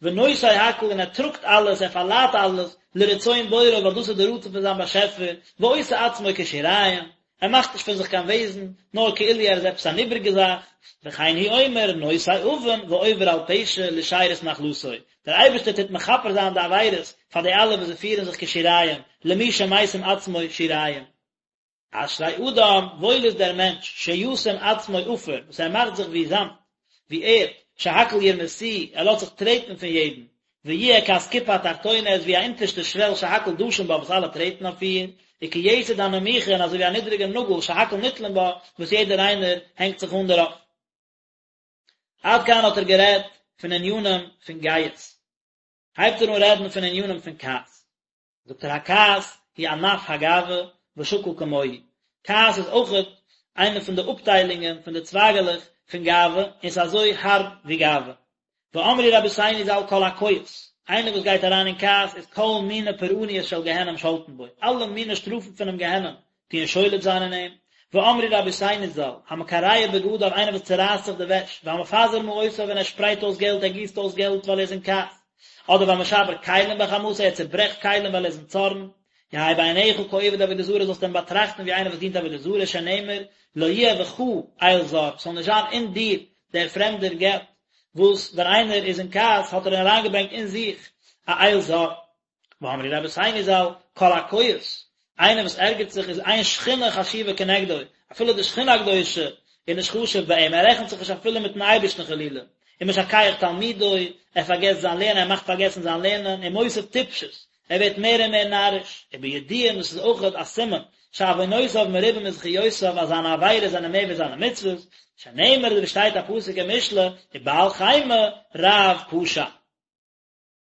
ונושא הכל און ער טראגט אלעס, ער פארליידט אלעס, לרצון בוראו ווייל דאס איז די רצון פון זיין באשעפער, ועושה עצמו כשיריים, ער מאכט נישט פון זיך קיין וועזן, נאר כאילו ער איז עפעס אן איבריגע זאך, וכן הוא אומר, נושא עוון ועובר על פשע לשארית נחלתו, דער אייבערשטער טוט מכפר זיין די עבירות פאר די אלע וואס זיי פירן זיך כשיריים, למי שמשים עצמו שיריים. אשרי אדם, וואויל איז דער מענטש, שישים עצמו עפר, וואס ער מאכט זיך ווי זאמד, ווי ערד, שהכל ירמסוהו, ער לאזט זיך טרעטן פון יעדן, ויהיה כאסקופה התחתונה, ער איז ווי א אונטערשטע שוועל שהכל דשין בה וואס אלע טרעטן אויף איר, וכיתד הנמוכה און אזוי ווי א נידריגע נאגל שהכל נתלין בה, וואס יעדער איינער הענגט זיך אן דערויף. עד כאן האט ער גערעדט פון ענינים פון גאות. הייבט ער אן רעדן פון ענינים פון כעס. זאגט ער הכעס הוא ענף הגאווה ושקול כמוהו, כעס איז אויכעט איינע פון די אפטיילונגען פון די צווייגעלעך פון גאווה און ס'איז אזוי הארב ווי גאווה. ואמרו רבותינו ז"ל כל הכועס, איינער וואס גייט אריין אין כעס איז כל מיני פורעניות של גיהנם שולטין בו, אלע מיני שטראפן פונעם גיהנם טוען שולט זיין אין אים, ואמרו רבותינו ז"ל, המקרע בגדיו איינער וואס צורייסט זיך די וועש, והמפזר מעותיו און ער שפרייט אויס געלט, ער גיסט אויס געלט ווייל ער איז אין כעס, אדער והמשבר כלים בחמתו ער צוברעכט כלים ווייל ער איז אין צארן, יהא בעיניך כעובד עבודה זרה זאלסטו אים באטראכטן ווי איינער וואס דינט עבודה זרה שנאמר לא יהיה בך אל זר, ס'זאל נישט זיין אין דיר דער פרעמדער גאט, וואס ווען איינער איז אין כעס האט ער אריינגעברענגט אין זיך א אל זר. ואמרו רבותינו ז"ל, כל הכועס, איינער וואס ערגערט זיך איז אין שכינה חשובה כנגדו, אפילו די שכינה הקדושה איז נישט חשוב ביי אים, ער רעכנט זיך נישט אפילו מיטן אייבערשטן חלילה, ומשכח תלמודו, ער פארגעסט זיין לערנען, ער מאכט פארגעסן זיין לערנען, ומוסיף טיפשות, ער ווערט מער און מער נאריש, ובידוע דאס איז אויך א סימן, שעוונותיו מרובים מזכיותיו אז זיינע עבירות זענען מער ווי זיינע מצוות, שנאמר ווי שטייט א פסוק אין משלי, ובעל חימה רב פשע.